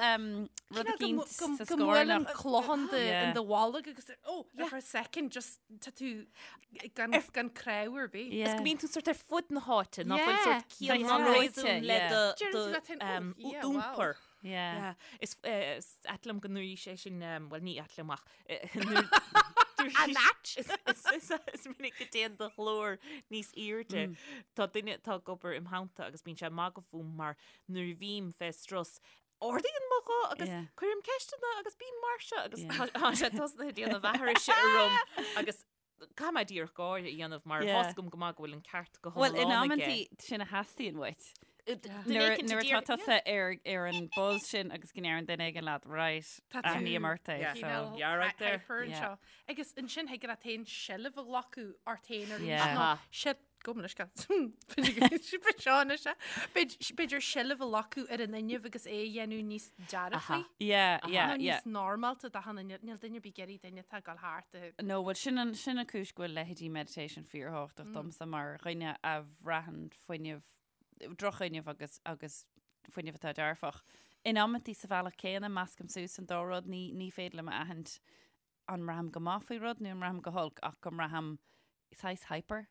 rud eicínt sa Go mbuaileann clochán in do bholg agus oh, for a second just tá tú gan gan crew ar bith. Is go mbíonn tú sort ar fud na háite, ná fuil sort ciall ná réasún le do d'iompar. Yeah. Is ait liom go ndúirt sé sin, bhuel ní ait liom ach An ait? Is minic go dtéann do ghlór níos airde. Tá duine atá ag obair im theannta agus bíonn sé ag magadh fúm mar nuair a bhím fé strus, ardaíonn mo ghuth agus cuirim ceisteanna agus bím mar seo agus tá sé tosnaithe ag déanamh aithrise orm agus caithfidh mé díreach gáire a dhéanamh mar tá a fhios agam go maith go bhfuil an ceart go Bhuel, in hiomlán aige. amantaí sin a theastaíonn uait. Nuair nuair atá tusa ar ar an buzz sin agus go ndeireann duine éigin leat, right, Tá tú aithním ort é, so. cineál Yeah, right there. hyper Yeah. anseo. Agus ansin thig leat féin seilbh a ghlacadh ort féin arís Yeah. nó Aha. se- Gabh mo leithscéal. Seo anois é. B'fhéidir seilbh a ghlacadh ar an fhuinneamh agus é a dhéanamh níos dearfaí. Yeah, yeah, Nó yeah. níos normálta d'achan duine. Níl duine ar bith ag iarraidh duine atá ag dul thart a No, bhuel sin an sin an cúis go bhfuil leithéidí meditation fíorthábhachtach domsa mar dhuine a bhraitheann fuinneamh drochfhuinneamh agus agus fuinneamh atá dearfach. In amantaí sa bhealach céanna, meascaim suas an dá rud, ní ní féidir liom a aithint an mbraithim go maith faoi rud nó an mbraithim go holc ach go mbraithim saghas hyper.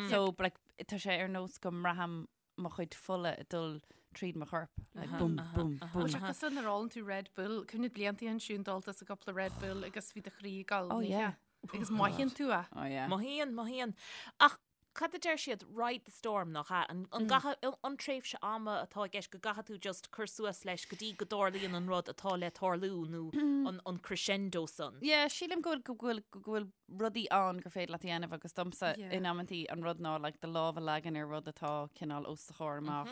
So like, tá sé ar nós go mbraithim mo chuid fola ag dul tríd mo chorp. Like, bum, bum, bum. Bhuel, sé cosúil nuair a ólann tú Red Bull, cuimhnigh blianta ansin d'ól tusa cúpla Red Bull agus bhí do chroí ag dul Oh, yeah. Agus mothaíonn tú é. Oh, yeah. Mothaíonn, mothaíonn. Ach Cad a deir siad, ride the storm, nach ea? An gcaithfidh, an tréimhse ama atá i gceist go gcaithfidh tú just cur suas leis go dtí go dtarlaíonn an rud atá le tarlú nó an crescendo san? Yeah, sílim go bhfuil, go bhfuil, go bhfuil rudaí ann gur féidir leat a dhéanamh agus domsa in amantaí an rud ná like do lámh a leagan ar rud atá cineál os do chomhair amach,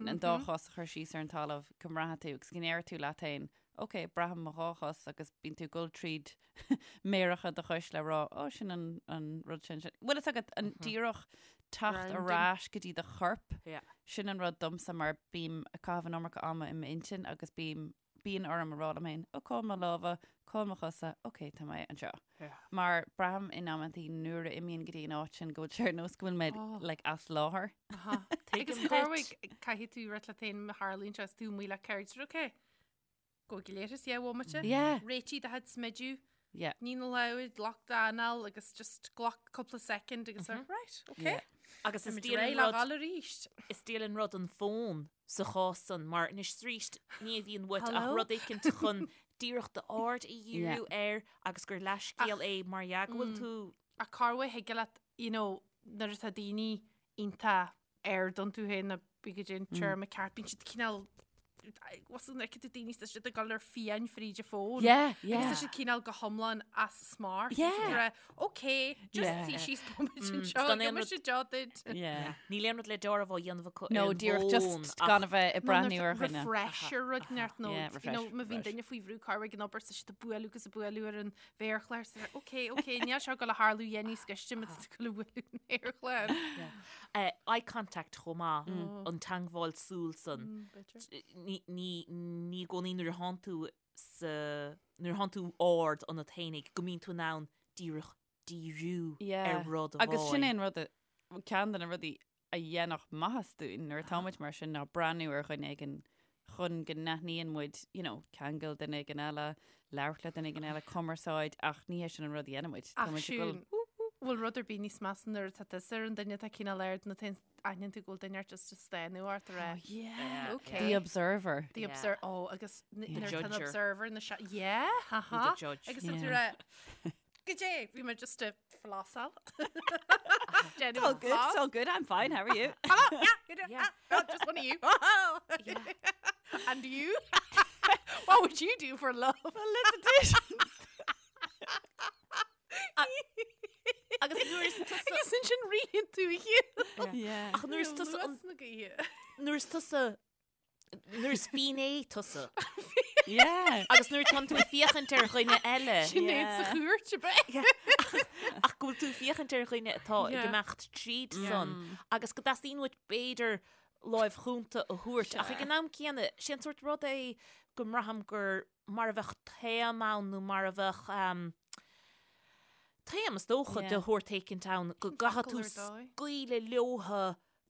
an dá chos a chur síos ar an talamh go mbraithfidh tú agus go ndéarfaidh tú leat féin, ok, braithim mo dhá chos agus bíonn tú ag dul tríd méaracha do chois le rá, ó, sin an, an rud sin, sin. Bhfuil fhios agat an díreach teacht ar ais go dtí do chorp, sin an rud domsa mar bím ag caitheamh an iomarca ama i m'intinn agus bím, bíonn orm a rá liom féin, ó, cá bhfuil mo lámha, cá bhfuil mo chosa, ok, tá mé anseo. Mar braithim in amantaí nuair a imím go dtí an áit sin go bhfuil sé ar nós go bhfuil mé like as láthair. Agus corruair caithfidh tú rá leat féin má tharlaíonn sé is tú amuigh le cairde, ok, Go léir is é bhomaite. Yeah. Réitigh do chuid smidiú. Yeah. Nigh na lámha, glac d'anáil agus just glac cúpla second agus mm -hmm. right, okay. Yeah. Agus is diail an rud arís. Is diail an rud an fón sa chás san mar anois arís ní bhíonn uait ach rud éicint chun díreach d'aird a dhíriú air agus gur leathscéal é mar dhea go bhfuil tú Ach corruair thig leat, you know, nuair atá daoine iontach ard iontu féin nó cibé cad é an téarma ceart, bíonn siad cineál was an fheiceann tú daoine tá siad ag dul ar fiáin fríd an fón. Yeah, yeah. Agus tá siad cineál go hiomlán as smacht. Yeah. Ok, just Yeah. suigh síos bomaite Mm, anseo, gan aon gheobhaidh rud- siad deá duit. Yeah. Níl aon rud le deáramh á dhéanamh acu No, ar an díreach bhfón just ach- gan a bheith ag breathnú ar dhuine. Refresher rud neart nó Yeah, you refresh, know, má bhíonn refresh. duine faoi bhrú corruair ag an obair tá siad ag bualadh agus ag bualadh ar an mhéarchlár so ok, ok, níl seo ag dul a tharlú dhéan níos gaiste má tá tú ag dul a bhualadh an mhéarchláir. Eh, eye contact chomh maith, an teangmháil súl san. Ní, ní, ní i gcónaí nuair a thánn tú sa, nuair a thánn tú ard ionat fhéinig go mbíonn tú in ann díreach díriú Yeah. ar rud amháin. Agus sin é an rud, a- ceann de na rudaí a dhéanfadh maitheas dúinn nuair atá muid mar sin ná breathnú ar dhuine éigin chun go n-aithníonn muid, you know, ceangal duine éigin eile, labhairt le duine éigin eile, cumarsáid, ach ní hé sin an rud a dhéanann muid. Tá Ach muid ag siún, dul, bhfuil rud ar bith níos measa nuair atá tusa ar an duine atá cineál ard nó tá aithníonn tú go bhfuil duine ort just ag stánadh ort a rá. Oh, yeah. Okay. The observer. The Yeah. observer. Oh, agus The nuair atá an judger. observer na se. Yeah, ha-ha. The judge. Agus tá tú Yeah. rá, Goidé, bhí mé just ag flásáil. It's all good, it's all good, I'm fine, how are you? Hello, yeah, good, Yeah. ah, oh, just one of you. And you? What would you do for love? Felicitations! Agus nuair is tusa Agus ansin ritheann tú a chéile. Yeah. Ach nuair is tusa an- Luas na gaoithe. nuair is tusa nuair is finné tusa. Yeah. Agus nuair atánn tú ag féachaint ar dhuine eile. Sinéad sa chúirt ab ea? Ach go bhfuil tú ag féachaint ar dhuine atá ag imeacht tríd san agus go dteastaíonn uait b'fhéidir láimh chúnta a thabhairt. Ach ag an am céanna, sé an sórt rud é go mbraithim gur mar a bheadh taom ann nó mar a bheadh taom is dócha de shórt éicint ann go gcaithfidh tú scaoileadh leotha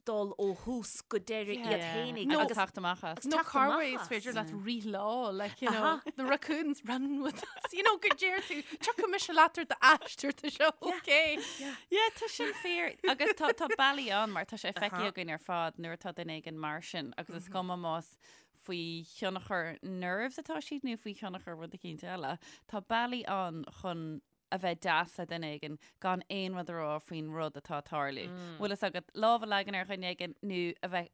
dul ó thús go deireadh iad fhéinig Nó agus teacht amach as. Nó corruair is féidir leat rith leo, like, you know, the raccoons run with us, you know, go deir tú, tiocfaidh mise leat ar d'aistear, tá sé okay. Yeah, tá sin fíor. Agus tá tá bealaí ann mar tá sé feicthe againn ar fad nuair atá duine éigin mar sin agus is cuma más faoi thionchar nerves atá siad nó faoi thionchar rud eicínt eile. Tá bealaí ann chun a bheith deas le duine éigin gan aon rud a rá faoin rud atá ag tarlú. Bhfuil fhios agat lámh a leagan ar dhuine éigin nó a bheith,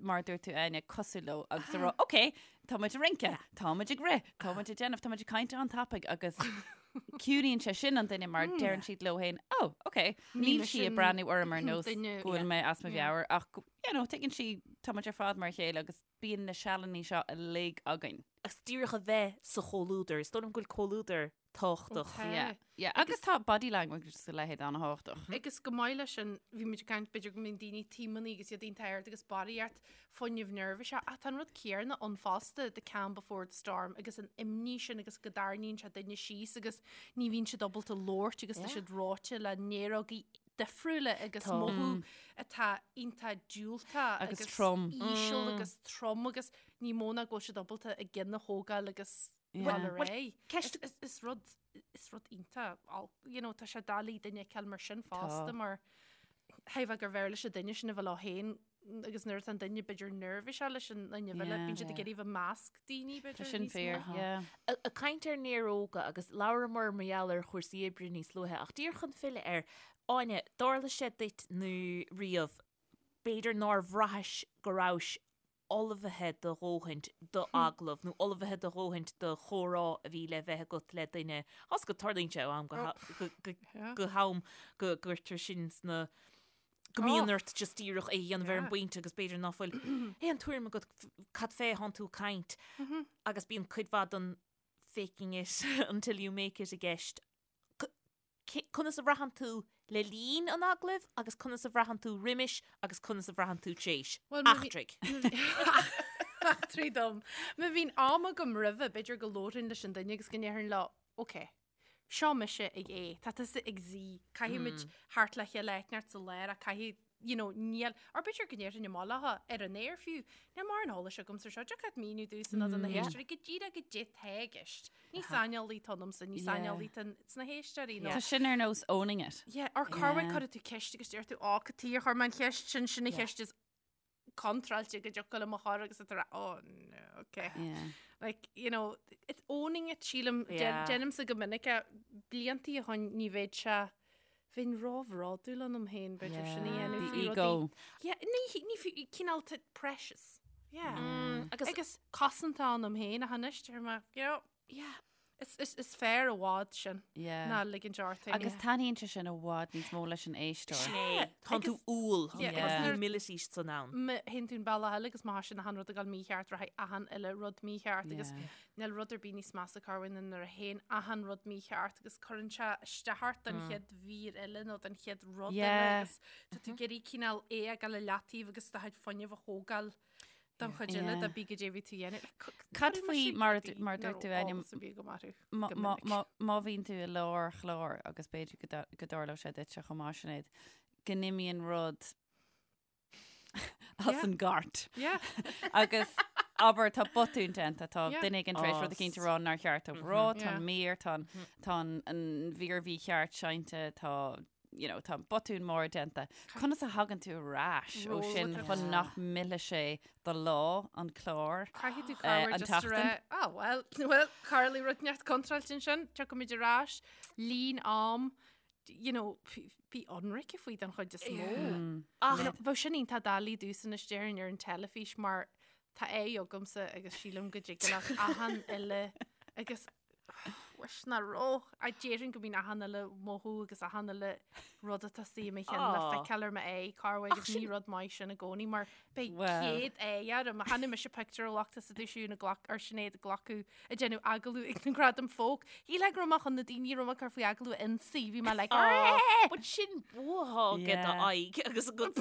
mar a dúirt tú Áine, cosúil leo agus a rá, ok, tá muid ag rince, tá muid ag rith, tá muid ag déanamh, tá muid ag caint an-tapaidh agus ciúnaíonn sé sin an duine mar deireann siad leo féin, oh, ok, níl sí ag breathnú orm ar nós go bhfuil mé as mo mheabhair ach, you know, tuigeann sí, tá muid ar fad mar a chéile agus bíonn na sealannaí seo uilig againn. Agus díreach a bheith sa chomhluadar, is dóigh liom go bhfuil comhluadar tábhachtach. Yeah, yeah. Agus tá body language agus a leithéid an-thábhachtach. Agus go maith leis sin, bhí muid ag caint b'fhéidir go mbíonn daoine taomannaí agus iad iontach ard agus barraíocht fuinneamh neirbhíseach. Ach tá an rud céanna ann fosta, the calm before the storm agus an imní sin agus go dtarraingíonn sé duine síos agus ní bhíonn siad ábalta labhairt agus tá siad reoite le néarógaí difriúla agus mothú atá iontach diúltach agus trom. íseal agus trom agus ní mó ná go bhfuil siad ábalta a gcinn a thógáil agus dul ar aghaidh. Ceist is rud is rud iontach you know, tá sé doiligh duine a fheiceáil mar sin fosta mar thuigfeá gur bhfearr leis an duine sin a bheith leo féin agus nuair atá an duine b'fhéidir neirbhíseach leis an duine eile bíonn siad ag iarraidh bheith i measc daoine b'fhéidir Sin fíor, yeah. Ag caint ar néaróga agus labhramar mar gheall ar chúrsaí oibre níos luaithe ach díreach chun filleadh air, Áine, dtarla sé duit nó riamh b'fhéidir nár bhraithis go rabhais ullmhaithe do dhóthaint do agallamh nó ullmhaithe do dhóthaint do chomhrá a bhí le bheith agat le duine. Is go dtarlaíonn sé ó am go ham go gcuirtear sin sna go mbíonn ort just díreach é a dhéanamh ar an bpointe agus b'fhéidir ná fuil aon tuairim agat cad fé thánn tú ag caint agus bíonn cuid mhaith den faking it until you make it i gceist. Conas a bhraitheann tú le linn an agallaimh agus conas a bhraitheann tú roimis agus conas a bhraitheann tú tréis? Eachtraigh. Eachtraigh dom. Má bhíonn am agam roimhe, b'fhéidir go labhrainn leis an duine agus go ndéarfainn leo, ok, seo mise ag A, tá tusa ag Z, caithfimid theacht le chéile áit inteacht sa lár ach caithfidh you know, níl, or b'fhéidir go ndéarfainn amach leo ar an aer fiú, níl mórán eolais agamsa ar seo, dtiocfadh leat míniú domhsa nó do na héisteoirí go díreach goidé tá i gceist. Ní saineolaí atá ionamsa, ní saineolaí atá sna héisteoirí. Tá sin ar nós owning it. Yeah, or corruair cuireann tú ceist agus deir tú, á, cad chuige ar chuir mé an cheist sin, sin an cheist is contráilte go dtiocfadh liom a chur agus tá oh no, okay. Yeah. Like, you know, it's owning it, sílim, déanaimse go minic é, bliantaí ó shin ní bheadh sé Bheinn róbhródúil ionam féin, b'fhéidir, sin a dhéanamh faoi rudaí. Ego. Yeah, ní, ní fiú, cineál precious. Yeah. Agus, agus cosanta ionam féin ach anois, deir mé, you know, yeah. Is, is, is fearr i bhfad sin Yeah. ná ligint ort féin. Agus taitníonn sé sin i bhfad níos mó leis an éisteoir. Sin é. Tá tú umhal, Yeah, tá agus nuair- humility san ann. Má théann tú an bealach eile agus má tá sin achan rud ag dul mícheart, rachaidh achan uile rud mícheart agus Yeah. Níl rud ar bith níos measa corruair ná nuair a théann achan rud mícheart agus cuireann sé isteach ort don chéad mhír eile nó don chéad rud eile agus tá tú ag iarraidh cineál é a fhágáil i leataobh agus do chuid fuinnimh a thógáil don chuid eile de bí goidé a bhí tú a dhéanamh. Cad faoi mar a mar a dúirt tú Áine, má bhíonn tú i lár chláir agus b'fhéidir go dtarlódh sé duitse chomh maith Sinéad, go n-imíonn rud as an gcairt. Agus abair tá botún déanta, tá duine éigin tar éis rud eicínt a rá nár cheart dóibh rá, tá an mír, tá an mhír mhícheart seinnte, tá you know, tá botún mór déanta. Conas a thagann tú ar ais ó sin chun nach millfidh sé do lá, an clár, Caithfidh tú cabhair an just a rá, ah, well, well, tharla rud inteacht contráilte ansin, tiocfaimid ar ais, líon am, you know, bí ionraice faoi den chuid is mó. Ach you know, bheadh sin iontach doiligh domhsa anois déarfainn ar an teilifís mar tá aghaidh agamsa agus sílim go dtig leat achan uile agus. Wish nach raibh. A déarfainn go mbíonn achan uile mothú agus achan uile rud atá istigh i mo cheann le feiceáil ar m'aghaidh corruair agus ní rud maith sin i gcónaí mar beidh 100 aghaidh orm. Chonaic mise pictiúr ó lucht is a dúisiú na glac ar Sinéad ag glacadh ag déanamh agallamh ag na Gradaim Folk. Shílfeá go raibh mé chun na daoine a raibh mé ag cur faoi agallamh a ionsaí. Bhí mé like Aw, but sin bua aige do aghaidh agus a gcuid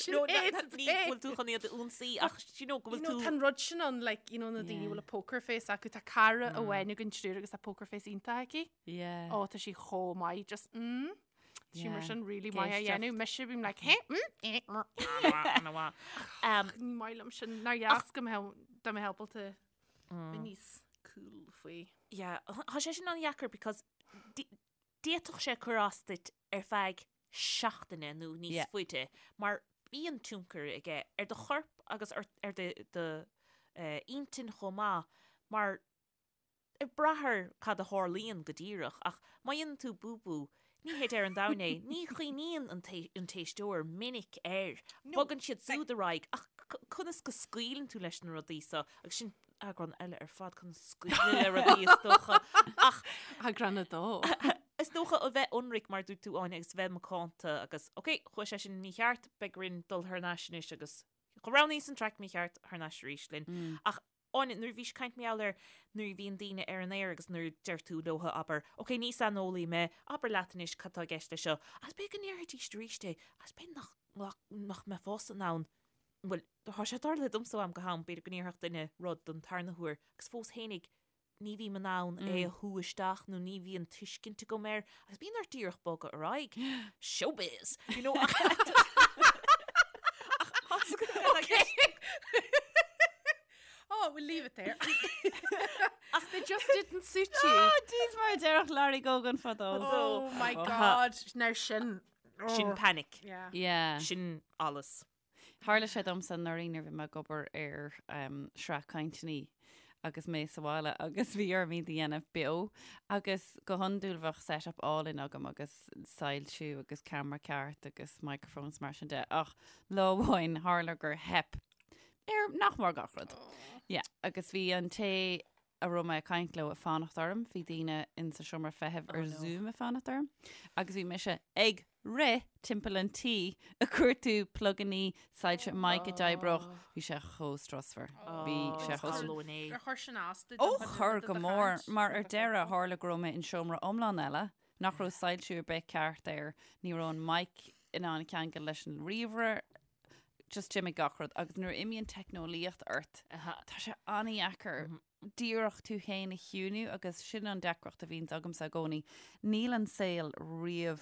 Sinéad, Ní bhfuil tú chun iad a ionsaí ach you know go bhfuil tú Tá an rud sin ann like you know na daoine a bhfuil a poker face acu tá cara amháin againn triúr agus tá poker face iontach aici. Yeah. Ó tá sí chomh maith just mm. Tá sí mar sin really maith á dhéanamh. Mise bím like hey mm eh mm. Um, Ní maith liom sin nár dheas go mbeadh dá mbeadh ábalta bheith níos cool faoi. Yeah, tá sé sin an-dheacair because d'fhéadfadh sé cur as duit ar feadh seachtaine nó níos Yeah. faide mar bíonn tionchar aige ar do chorp agus ar, ar do, do uh, intinn chomh maith mar ag brath ar cad a tharlaíonn go díreach ach má dhéanann tú búbú ní hé deireadh an domhain é, ní chuimhníonn an an t-éisteoir minic air. Bogann siad súd ar aghaidh ach conas go scaoileann tú leis na rudaí so agus sin eagrán eile ar fad conas scaoileadh le rudaí is dócha ach Eagrán a dó. Is dócha a bheith ionraic mar dúirt tú Áine agus bheith macánta agus ok, chuaigh sé sin mícheart, beidh orainn dul thar n-ais anois agus roghnaíos an traic mícheart thar n-ais arís linn. Ach Áine, nuair a bhís ag caint mar gheall ar nuair a bhíonn daoine ar an aer agus nuair a deir tú leo, abair, ok, ní saineolaí mé, abair leat anois cad tá i gceist leis seo, agus b'fhéidir go ndéarfaidís arís é, agus b'fhéidir nach, nach mbeifeása in ann, bhuel, tá sé tarlaithe domsa ó am go ham, b'fhéidir go ndéarfadh duine rud don tarna huair agus fós fhéinig ní bhím in ann é a shú isteach nó ní bhíonn tuiscint agam air agus bíonn ort díreach bogadh ar aghaidh. Showbiz! You know, ach Oh, we'll leave it there. Ach they just didn't suit you. Oh, jeez, mar a déarfadh Larry Gogan fadó. Oh my God, now sin. Sin panic. Yeah. Yeah. Sin allas. Tharla sé domsa anuraidh nuair a bhí mé ag obair ar sraith cainteanna agus mé sa bhaile agus bhí orm iad a dhéanamh beo agus go hiondúil bheadh set-up álainn agam agus soilsiú agus ceamara ceart agus microphones mar sin de ach lá amháin tharla gur theip ar nach mór gach rud. Yeah, agus bhí an té a raibh mé ag caint leo ag fanacht orm, bhí daoine in sa seomra feithimh ar Zoom ag fanacht orm agus bhí mise ag rith timpeall an tí ag cuartú plugannaí, soilse, mic a d'oibreodh, bhí sé chomh strusmhar. Bhí sé chomh strusmhar. Ar chuir sin as duit? Ó chuir go mór, mar ar deireadh tharla go raibh mé in seomra iomlán eile nach raibh soilsiú ar bith ceart air, ní raibh an mic in ann ceangal leis an ríomhaire, just d'imigh gach rud agus nuair a imíonn teicneolaíocht ort, tá sé an-dheacair díreach tú féin a chiúnú agus sin an deacracht a bhíonns agamsa i gcónaí. Níl an saol riamh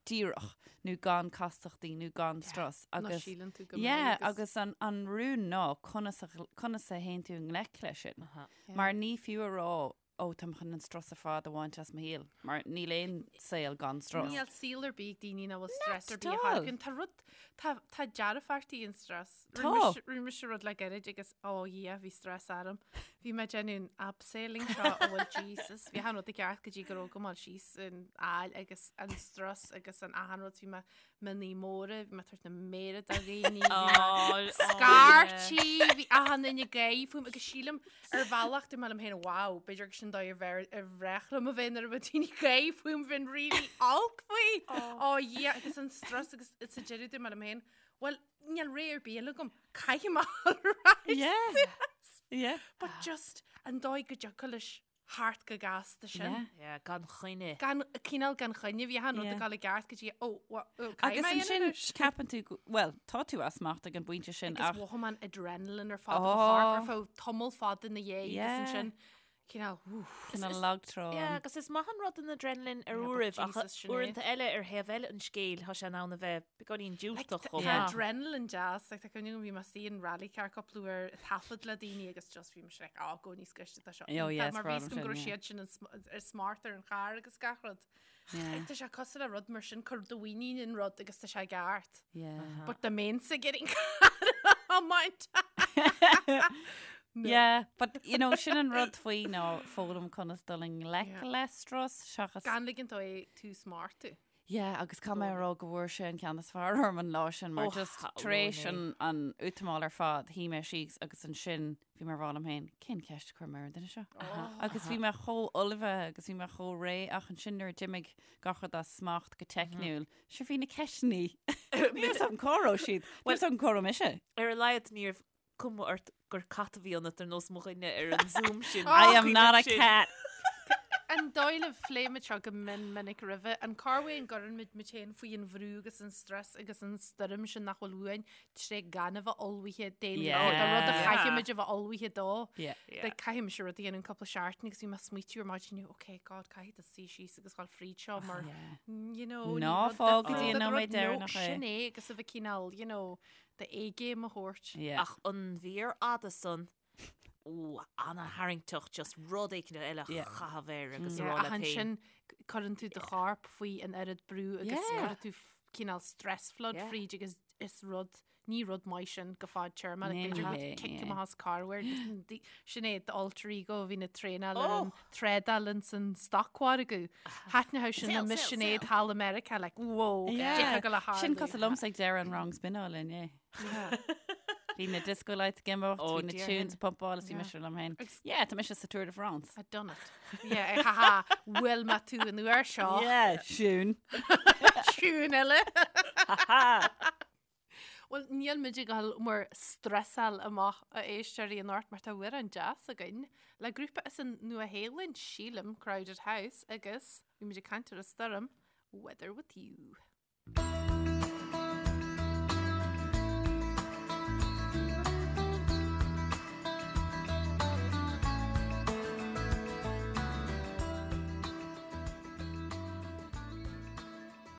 díreach nó gan castachtaí nó gan strus agus síleann tú go yeah, agus an, an rún ná conas a, conas a théann tú i ngleic leis sin. Mar ní fiú a rá Ó, táim chun an strus ar fad a bhaint as mo shaol, mar níl aon saol gan strus. Níl saol ar bith ag daoine nach bhfuil stress ar Not bith at all. a thairgeann. Tá rud, tá, tá dearfachtaí in stress. Tá. Rinne mise- Rinne mise rud le gairid agus, ó Dhia, bhí stress orm. Bhí mé ag déanamh an abseiling seo, ó bhuel Jesus, bhí achan rud i gceart go dtí go raibh go mall síos an aill agus an strus agus an achan rud, bhí mé mionnaí móra, bhí mé ag tabhairt na méire do dhaoine, bhí mé scairtí, bhí achan duine ag gáirí fúm agus sílim ar bhealach dúirt mé liom féin, wow, b'fhéidir gur sin dóigh ar bhreá ar bhreá liom a bheith nuair a bheadh daoine ag gáirí fúm, bheinn really olc faoi. Ó Dhia, agus an strus agus sa deireadh dúirt mé liom féin, well, níl ré ar bith eile agam, caithfidh mé a dhul ar ais Yeah. suas. Yeah. But just an dóigh go dtiocfadh leis thart go gasta sin. Yeah. Yeah, gan choinne. Gan, cineál gan choinne, bhí achan rud Yeah. ag dul i gceart go dtí, ó, wha- ó, caithfidh Agus mé a ansin dhéanamh anois. ceapann tú, go- bhuel, tá tú as smacht ag an bpointe sin Agus ach mhothaigh mé an adrenaline ar fad i mo chorp Oh. ar feadh tamall fada ina dhiaidh agus Yeah. ansin cineál, woof. cineál lagtrá. Yeah, agus is maith an rud an adrenaline ar Yeah, but uairibh ach Jesus, Sinéad. uaireanta eile ar thaobh eile an scéil tá sé in ann a bheith beagáinín diúltach chomh Tá maith. adrenaline deas, like, tá cuimhne agam bhí mé istigh in rally car cúpla uair ag taifead le daoine agus just bhí mise like, oh, go níos gaiste tá seo. Oh, yes, mar bhí problem go sin, raibh yeah. siad sin an sm- ar smart ar an charr agus gach rud. Yeah. Tá sé cosúil le rud mar sin cuir do mhuinín in rud agus tá sé ceart. Yeah. But the main sa getting car on my No. Yeah, but you know, sin an rud faoi ná foghlaim conas dul i ngleic Yeah. le strus seachas Gan ligint dó é tú smart tú. Yeah, agus caithfidh mé a rá go bhfuair sé an ceann is fearr orm an lá sin mar just tar éis an an útamáil ar fad, shuigh mé síos agus ansin bhí mé ag rá liom féin, cén ceist a chuir mé ar an duine seo? Agus bhí mé chomh ullmhaithe agus bhí mé chomh réidh ach ansin nuair a d'imigh gach rud as smacht go teicniúil, sure bhí na ceisteanna, níl a fhios agam cá raibh siad, níl a fhios agam cá raibh mise. Ar a laghad ní raibh cuma ort gur cat a bhí ionat ar nós mo dhuine ar an Zoom sin. I am not a cat. An dóigh libh, phléigh muid seo go mion minic roimhe, an corruair an gcuireann muid muid féin faoi an bhrú agus an stress agus an stoirm sin nach bhfuil uainn tré gan a bheith ullmhaithe d'aon rud, do rud a chaithfidh muid a bheith ullmhaithe dó. Like caithfidh mise rud a dhéanamh cúpla seachtain agus bhí mé ag smaoitiú ar maidin inniu, ok God, caithfidh tú suí síos agus dhul fríd seo mar, you know, Ná fág go dtí an nóiméad deireanach é. Sin é agus a bheith cineál, you know, Do-A-game a thabhairt. Yeah. Ach an mhír fhada san, ó, ana-tharraingteach, just rud éicint eile a Yeah. chaitheamh air agus a Yeah, rá ach leat féin. ansin cuireann tú do chorp faoi an oiread brú agus Yeah. cuireann tú f- cineál stress flood Yeah. fríd agus is rud, ní rud maith sin go fadtéarma, like Ní b'fhéidir go hé, cic yeah. amach as corruair. Sin é d'alter ego a bhíonn ag traenáil ar Oh! an trádáil ins an stocmhargadh. Thaitneodh sin Sell, le sell, Sinéad sell. thall i Meiriceá, like, whoa, Yeah. d'fhéadfadh go le Sin tarlú. cosúil liomsa ag deireadh an rang spinneála inné. Bhí na disco lights ag imeacht, Oh, bhí na dear tunes ag pumpáil is bhí Yeah. mise liom féin. Agus- Yeah, tá mise sa Tour de France. I've done it. Yeah, ha ha, bhfuil mé tú an uair seo. Yeah, siún. Siún eile. Bhuel, níl muid ag dul bhur stresáil amach a éisteoirí anocht mar tá amhrán deas againn le grúpa as an Nua-Shéalainn, sílim, Crowded House, agus bhí muid ag caint ar an stoirm, Weather With You.